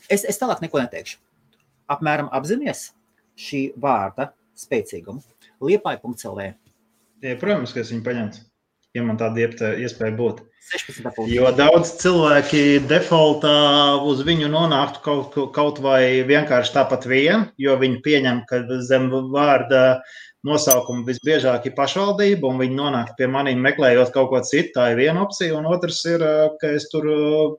es tālāk neko neteikšu. Apmēram apzinies šī vārda spēcīgumu. Liepāja.lv. Protams, ka es viņu paņemtu, ja man tāda iespēja būtu. 16,5. Jo daudz cilvēki defaultā uz viņu nonāktu kaut vai vienkārši tāpat vien, jo viņi pieņem, ka zem vārda nosaukuma visbiežāk ir pašvaldība, un viņi nonāk pie maniem meklējot kaut ko citu. Tā ir viena opcija, un otrs ir, ka es tur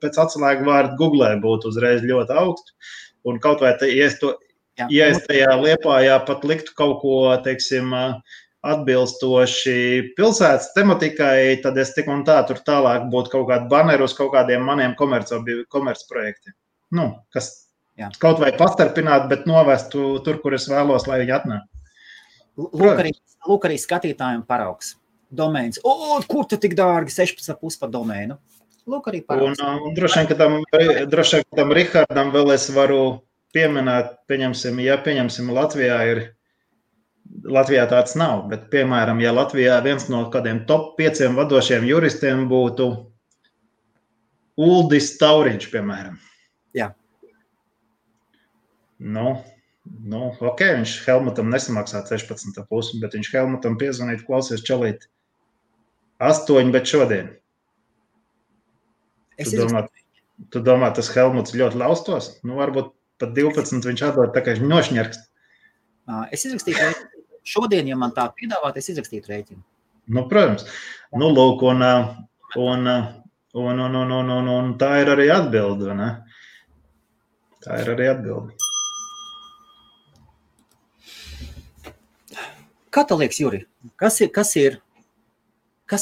pēc atslēgu vārdu Googlē būtu uzreiz ļoti augstu. Un kaut vai, ja es tajā Liepājā pat liktu kaut ko, teiksim, atbilstoši pilsētas tematikai, tad es tik un tā tur tālāk būtu kaut kādu baneru uz kaut kādiem maniem komercprojektiem. Kas kaut vai pastarpināt, bet novestu tur, kur es vēlos, lai viņi atnāk. Lūk arī skatītājiem paraugs. Domēns. Kur tu tik dārgi 16,5 par domēnu? Lūk, arī Un paraugs. droši vien, ka tam Rihardam vēl es varu pieminēt, pieņemsim, Latvijā tāds nav, bet, piemēram, ja Latvijā viens no kādiem top 5 vadošiem juristiem būtu Uldis Tauriņš, piemēram. Jā. Nu, ok, viņš Helmutam nesamaksā 16,5, bet viņš Helmutam piezvanīt, klausies čalīt 8, bet šodien. Tu domā, tas Helmuts ļoti laustos? Nu, varbūt pat 12 viņš atdod, tā kā viņš nošņarkst. Es izrakstītu rēķinu. Šodien, ja man tā piedāvāt, es izrakstītu rēķinu. Nu, protams. Nu, lūk, un tā ir arī atbilde, ne? Tā ir arī atbilde. Kā tev liekas, Juri? Kas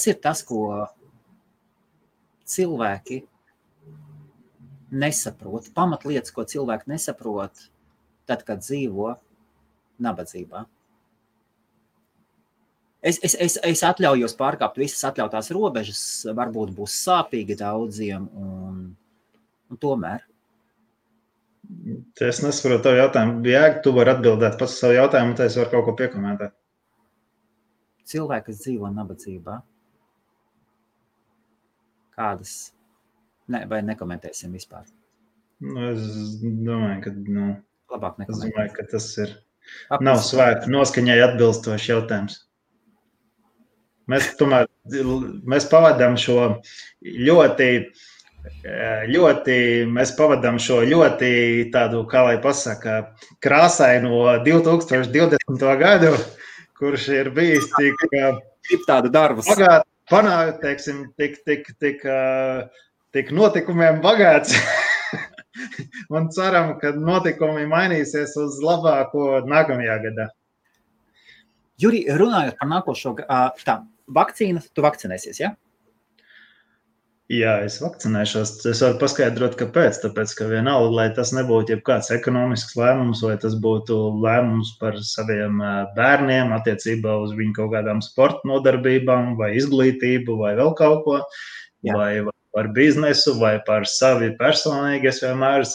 ir tas, ko cilvēki nesaprot, pamatlietas, ko cilvēki nesaprot, tad, kad dzīvo nabadzībā? Es atļaujos pārkāpt visas atļautās robežas, varbūt būs sāpīgi daudziem, un tomēr. Es nesaprotu tavu jautājumu. Jēga, tu vari atbildēt pats savu jautājumu, tad es varu kaut ko piekomentēt. Cilvēki, kas dzīvo nabadzībā, kādas, vai nekomentēsim vispār? Nu, es domāju, ka, labāk nekomentēsim. Es domāju, ka tas ir, nav svēku noskaņai atbilstošs jautājums. Mēs pavadām šo ļoti tādu, kā lai pasaka, krāsaino 2020. gadu, kurš ir bijis tik tādu darbus. Panākt, teiksim, tik notikumiem bagāts. Un ceram, ka notikumi mainīsies uz labāko nākamajā gadā. Juri, runājot par nākošo, vakcīna, tu vakcinēsies, ja? Jā, es vakcinēšos. Es varu paskaidrot, kāpēc. Tāpēc, ka vienalga, lai tas nebūtu jebkāds ekonomisks lēmums, vai tas būtu lēmums par saviem bērniem, attiecībā uz viņu kaut kādām sporta nodarbībām, vai izglītību, vai vēl kaut ko, vai par biznesu, vai par savi personīgi. Es vienmēr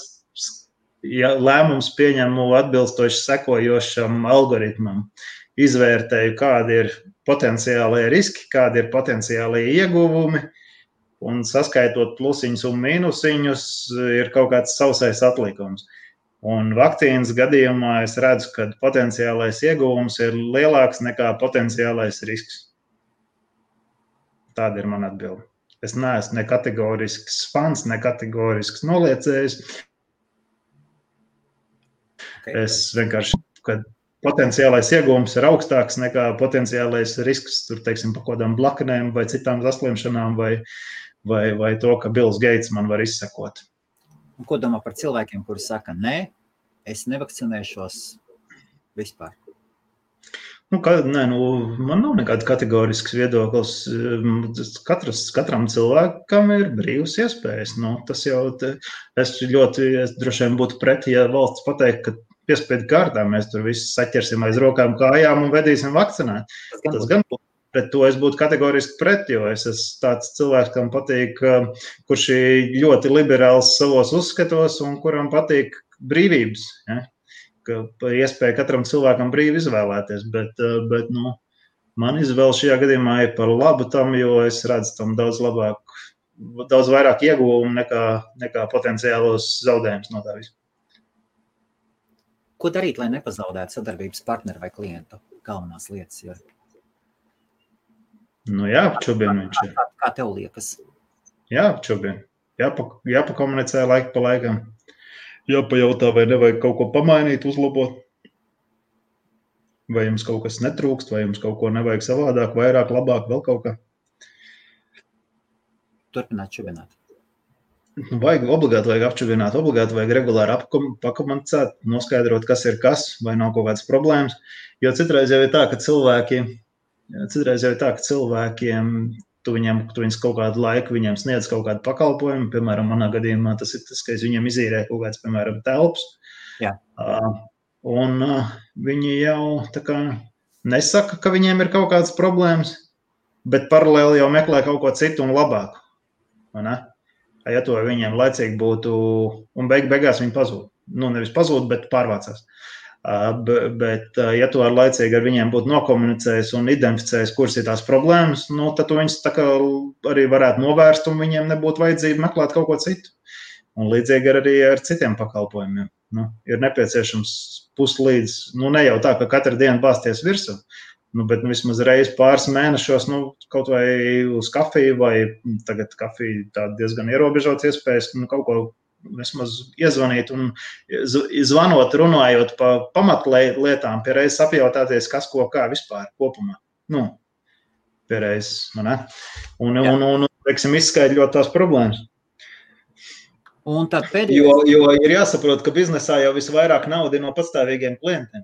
lēmums pieņemu atbilstoši sekojošam algoritmam. Izvērtēju, kādi ir potenciālie riski, kādi ir potenciālie ieguvumi, un saskaitot plusiņus un mīnusiņus ir kaut kāds sausais atlikums. Un vakcīnas gadījumā es redzu, ka potenciālais ieguvums ir lielāks nekā potenciālais risks. Tāda ir mana atbilde. Es neesmu ne kategorisks fans, ne kategorisks noliecējs. Es vienkārši, kad potenciālais ieguvums ir augstāks nekā potenciālais risks, tur, teiksim, pa kodām blakanēm vai citām saslimšanām vai to, ka Bills Gates man var izsekot. Un ko domā par cilvēkiem, kuri saka, nē, es nevakcinēšos vispār? Man nav nekāds kategorisks viedoklis. Katram cilvēkam ir brīvas iespējas. Tas jau, es droši vien būtu pretī, ja valsts pateikt, ka piespiedu kārtā mēs tur visus saķersim aiz rokām kājām un vedīsim vakcinēt. Tas gan pret to es būtu kategoriski pret, jo es esmu tāds cilvēks, kam patīk, kurš ir ļoti liberāls savos uzskatos un kuram patīk brīvības. Ja? Ka iespēja katram cilvēkam brīvi izvēlēties, bet man izvēle šajā gadījumā ir par labu tam, jo es redzu tam daudz vairāk ieguvumu nekā potenciālos zaudējumus no tā visu. Ko darīt, lai nepazaudētu sadarbības partneri vai klientu? Galvenās lietas ir. Jāapčubina viņš ir. Kā tev liekas? Jāapčubina. Jāpakomunicē laiku pa laikam. Jāpajautā, vai nevajag kaut ko pamainīt, uzlabot. Vai jums kaut kas netrūkst, vai jums kaut ko nevajag savādāk, vairāk, labāk, vēl kaut kā. Turpināt čubināt. Obligāti vajag apčubināt, obligāti vajag regulāri pakomunicēt, noskaidrot, kas ir kas, vai nav kaut kādas problēmas. Jo citreiz jau ir tā, ka cilvēkiem tu viņus kaut kādu laiku viņiem sniedz kaut kādu pakalpojumu. Piemēram, manā gadījumā tas ir tas, ka es viņiem izīrēju kaut kāds, piemēram, telpas. Jā. Un viņi jau tā kā nesaka, ka viņiem ir kaut kādas problēmas, bet paralēli jau meklē kaut ko citu un labāku. Vai ne? Ja to viņiem laicīgi būtu, un beigās viņi pazūd. Nu, nevis pazūd, bet pārvācās. Bet, ja tu laicīgi ar viņiem būtu nokomunicējis un identificējis, kuras ir tās problēmas, nu, tad tu viņus tā kā arī varētu novērst un viņiem nebūtu vajadzība meklēt kaut ko citu. Un līdzīgi arī ar citiem pakalpojumiem. Nu, ir nepieciešams puslīdz, nu, ne jau tā, ka katru dienu bāzties virsū, nu, bet vismaz reiz pāris mēnešos, nu, kaut vai uz kafiju, vai tagad kafija tā diezgan ierobežots iespējas, nu, kaut ko vismaz iezvanīt un zvanot, runājot pa pamatlietām, pie reizes apjautāties, kas ko kā vispār kopumā. Nu, pie reizes, man ne? Un teiksim, izskaidrot tās problēmas. Un tad pēdējais... Jo ir jāsaprot, ka biznesā jau visvairāk nauda ir no patstāvīgiem klientiem.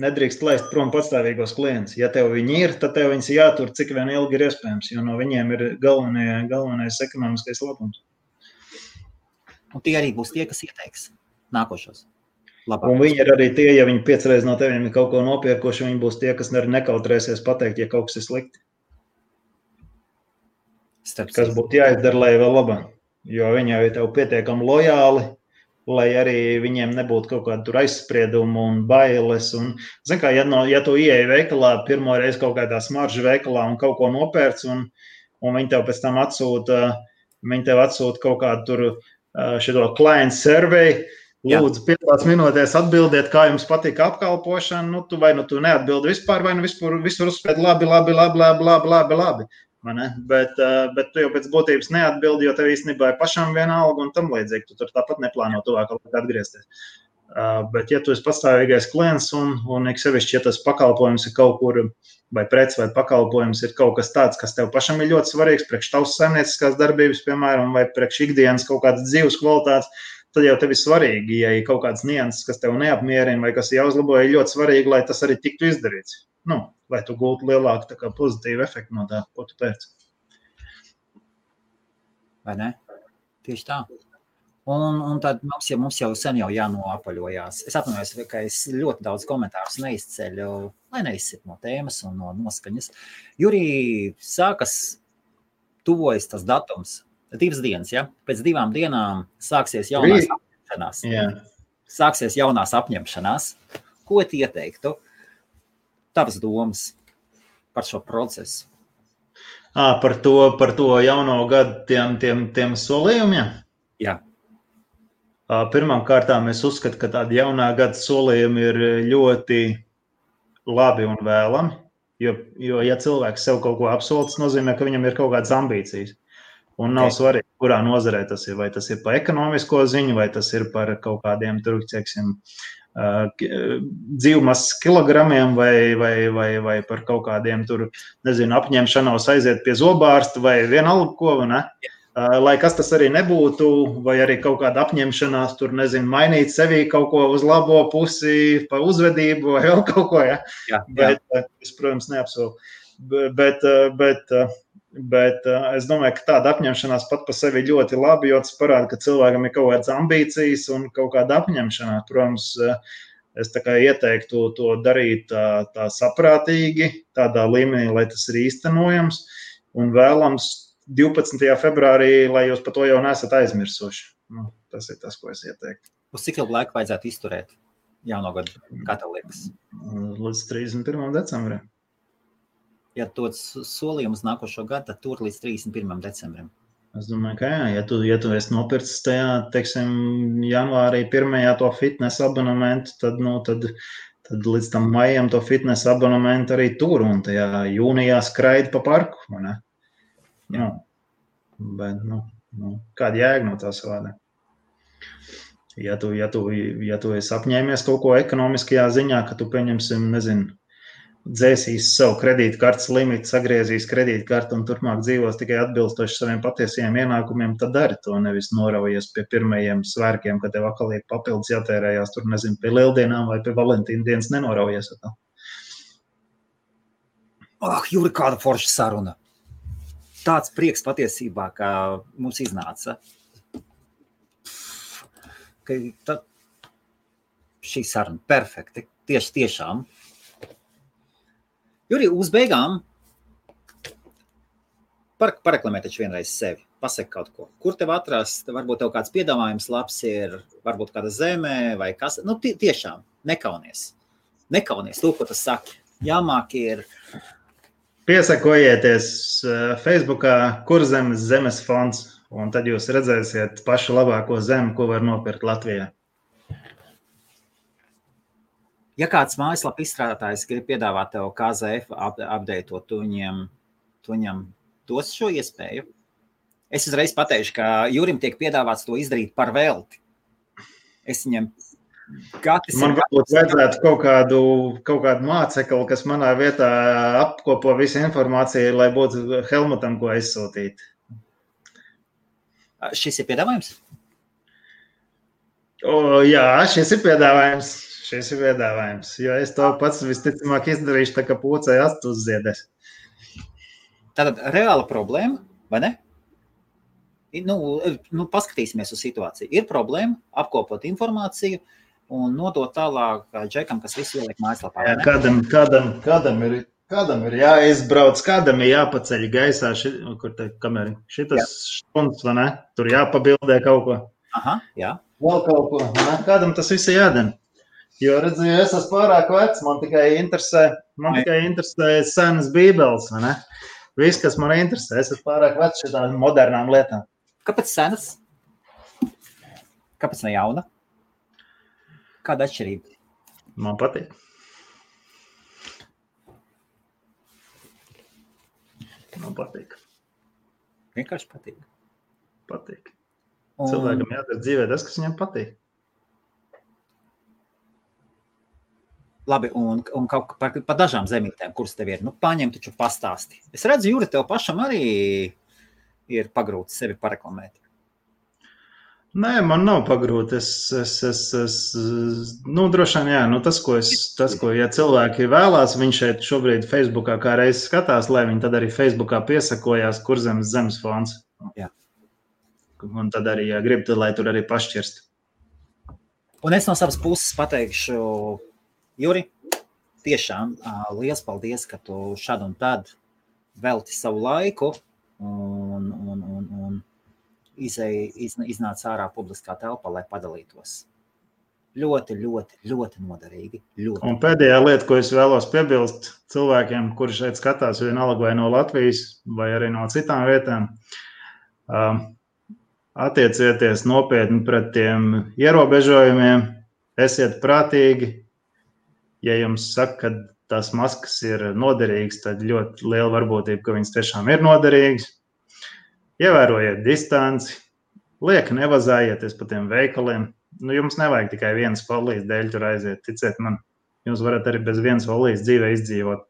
Nedrīkst laist prom patstāvīgos klientus. Ja tev viņi ir, tad tev viņus jātur, cik vien ilgi ir iespējams, jo no viņiem ir galvenais ekonomiskais labums. Un tie arī būs tie, kas ieteiks nākošos. Labāk. Un viņi ir arī tie, ja viņi 5 reizes no teviem ir kaut ko nopirkuši, viņi būs tie, kas nekautrēsies pateikt, ja kaut kas ir slikti. Kas būtu jāizdara, lai vēl labāk. Jo viņi jau ir tev pietiekami lojāli, lai arī viņiem nebūtu kaut kāda tur aizspriedumu un bailes. Un, zin kā, ja tu ieeji veikalā, pirmo reizi kaut kādā smaržu veikalā un kaut ko nopērc, un viņi tev pēc tam atsūta kaut kādu tur šito client survey, lūdzu 5 minūtēs atbildiet, kā jums patika apkalpošana, nu tu neatbildi vispār, vai nu visur uzspēt labi. Bet tu jau pēc būtības neatbildi, jo tev īstenībā ir pašam vienalga un tam līdzīgi, tu tur tāpat neplāno tuvāk atgriezties. Bet ja tu esi pastāvīgais klients un sevišķi, ja tas pakalpojums ir kaut kur, vai preci vai pakalpojums ir kaut kas tāds, kas tev pašam ir ļoti svarīgs, priekš tavas saimnieciskās darbības, piemēram, vai priekš ikdienas kaut kādas dzīves kvalitātes, tad jau tev ir svarīgi, ja ir kaut kāds nianses, kas tev neapmierina vai kas jāuzlabo, ir ļoti svarīgi, lai tas arī tiktu izdarīts. Nu, lai tu gūtu lielāku tā kā pozitīvu efektu no tā, ko tu pēc. Vai ne? Tieši tā. Un tad mums jau sen jau jānoapaļojās. Es atvainojos, ka es ļoti daudz komentārus neizceļu, lai neizsit no tēmas un no noskaņas. Jurī, tuvojas tas datums, 2 dienas, ja? Pēc 2 dienām sāksies jaunās apņemšanās. Yeah. Sāksies jaunās apņemšanās. Ko tu ieteiktu? Tavas domas par šo procesu? Par to jauno gadu tiem solījumiem? Jā. Pirmām kārtām es uzskatu, ka tādi jaunā gada solījumi ir ļoti labi un vēlami, jo ja cilvēks sev kaut ko apsola, tas nozīmē, ka viņam ir kaut kādas ambīcijas. Un nav svarīgi, kurā nozarē tas ir, vai tas ir par ekonomisko ziņu, vai tas ir par kaut kādiem tur, teiksim, dzīvmasas kilogramiem vai par kaut kādiem tur, nezinu, apņemšanos aiziet pie zobārsta vai vienalga ko, ne? Lai kas tas arī nebūtu, vai arī kaut kāda apņemšanās tur, nezinu, mainīt sevī kaut ko uz labo pusi, pa uzvedību vai vēl kaut ko, ja? Jā. Bet es, protams, neapsolu. Bet es domāju, ka tāda apņemšanās pat pa sevi ļoti labi, jo tas parāda, ka cilvēkam ir kaut kādas ambīcijas un kaut kāda apņemšanās. Protams, es tā kā ieteiktu to darīt tā saprātīgi, tādā līmenī, lai tas ir īstenojams un vēlams 12. februārī, lai jūs par to jau nesat aizmirsuši. Nu, tas ir tas, ko es ieteiktu. Uz cik ilgu laiku vajadzētu izturēt jauno gadu, kā tev liekas? Līdz 31. decembrim. Ja dod solījumus nākošo gadu, tad tur līdz 31. decembrim. Es domāju, ka jā, ja tu esi nopircis tajā, teiksim, janvārī 1. to fitness abonementu, tad līdz tam maijam to fitness abonementu arī tur un tajā jūnijā skraidi pa parku, vai ne? Nu, bet, kāda jēga no tās vārdā? Ja tu esi apņēmies kaut ko ekonomiskajā ziņā, ka tu pieņemsim, nezinu, dzēsīs savu kredītkartes limitu, sagriezīs kredītkartu un turpmāk dzīvos tikai atbilstoši saviem patiesajiem ienākumiem, tad dari to, nevis noraujies pie pirmajiem svērkiem, kad tev atkal ir papildus jātērējās tur, nezinu, pie Lieldienām vai pie Valentīna dienas nenoraujies. Juri, kāda forša saruna! Tāds prieks patiesībā, kā mums iznāca. Šī saruna perfekti, tiešām. Juri, uz beigām pareklamē taču vienreiz sevi. Pasaki kaut ko. Kur tev atrast? Varbūt tev kāds piedāvājums labs ir, varbūt kāda zemē vai kas. Nu, tiešām, nekaunies. Nekaunies, to, ko tu saki. Jāmāk ir... Piesakojieties Facebookā Kurzemes zemes fonds, un tad jūs redzēsiet pašu labāko zemi, ko var nopirkt Latvijā. Ja kāds mājaslapa izstrādātājs grib piedāvāt tev KZF updateot, tu viņam dos šo iespēju. Es uzreiz pateikšu, ka Jurim tiek piedāvāts to izdarīt par velti. Es viņam... Man varbūt vajadzētu kaut kādu mācekli, kas manā vietā apkopo visu informāciju, lai būtu Helmutam, ko aizsūtīt. Šis ir piedāvājums? Jā, šis ir piedāvājums, jo es to pats visticamāk izdarīšu, tā kā pūcei astu uzziedēs. Tātad reāla problēma, vai ne? Nu, paskatīsimies uz situāciju. Ir problēma apkopot informāciju, un nodot tālāk džekam, kas visu ieliek mājaslapā. Kādam ir jāizbrauc, kādam ir jāpaceļ gaisā, šitas štunds, vai ne? Tur jāpabildē kaut ko. Aha, jā. Vēl kaut ko, ne? Kādam tas viss jādara. Jo, redzu, es esmu pārāk vecs, man tikai interesē senas bībeles, vai ne? Viss, kas man interesē, es esmu pārāk vecs šitām modernām lietām. Kāpēc senas? Kāpēc ne jauna? Kāda atšķirība? Man patīk. Vienkārši patīk. Patīk. Cilvēkam jādara dzīvē tas, kas viņam patīk. Labi, un kaut par dažām zemītēm, kuras tev ir, paņem taču pastāsti. Es redzu, Juri, tev pašam arī ir pagrūti sevi pareklamēt. Nē, man nav pagrūti. Droši vien, jā, tas, ko ja cilvēki vēlās, viņš šeit šobrīd Facebookā kā reiz skatās, lai viņi tad arī Facebookā piesakojās Kurzemes zemes fonds. Jā. Un tad arī, ja grib, tad lai tur arī pašķirst. Un es no savas puses pateikšu, Juri, tiešām liels paldies, ka tu šad un tad velti savu laiku un iznāca ārā publiskā telpā, lai padalītos. Ļoti, ļoti, ļoti noderīgi. Ļoti. Un pēdējā lieta, ko es vēlos piebilst cilvēkiem, kuri šeit skatās vienalga vai no Latvijas, vai arī no citām vietām, attiecieties nopietni pret tiem ierobežojumiem, esiet prātīgi. Ja jums saka, ka tās maskas ir noderīgas, tad ļoti liela varbūtība, ka viņas tiešām ir noderīgas. Ievērojiet distanci, lieki nevazājieties pa tiem veikaliem. Jums nevajag tikai vienas folijas dēļ tur aiziet, ticiet man. Jums varat arī bez vienas folijas dzīvē izdzīvot.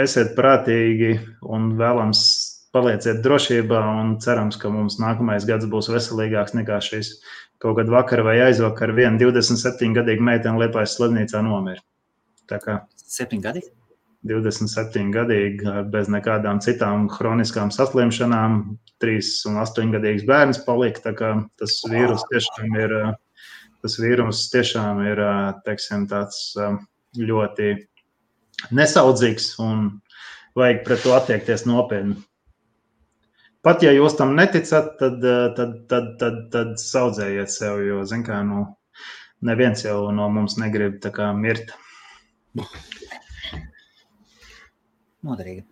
Esiet prātīgi un vēlams palieciet drošībā un cerams, ka mums nākamais gads būs veselīgāks nekā šis. Kaut kad vakar vai aizvakar viena 27-gadīga meitene Liepājas slimnīcā nomira. Tā kā 7 gadi? 27-gadīgi bez nekādām citām hroniskām saslimšanām, 3 un 8-gadīgs bērns palika, tā kā tas vīrus tiešām ir, teiksim, tāds ļoti nesaudzīgs un vajag pret to attiekties nopietni. Pat ja jūs tam neticat, tad saudzējiet sev, jo, zin kā, neviens jau no mums negrib tā kā mirt. Noderīgi.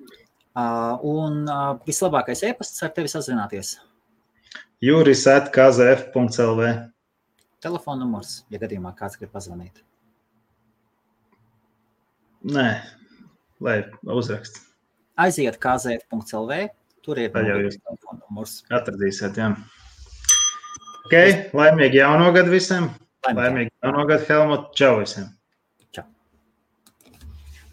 Un vislabākais e-pasts ar tevi sazināties? juris@kzf.lv. Telefona numurs, ja gadījumā kāds grib pazvanīt? Nē, lai uzrakst. Aiziet kzf.lv, tur ir telefona numurs. Atradīsiet, jā. Ok, laimīgi jauno gadu visiem. Laimīgi jauno gadu, Helmut. Čau visiem.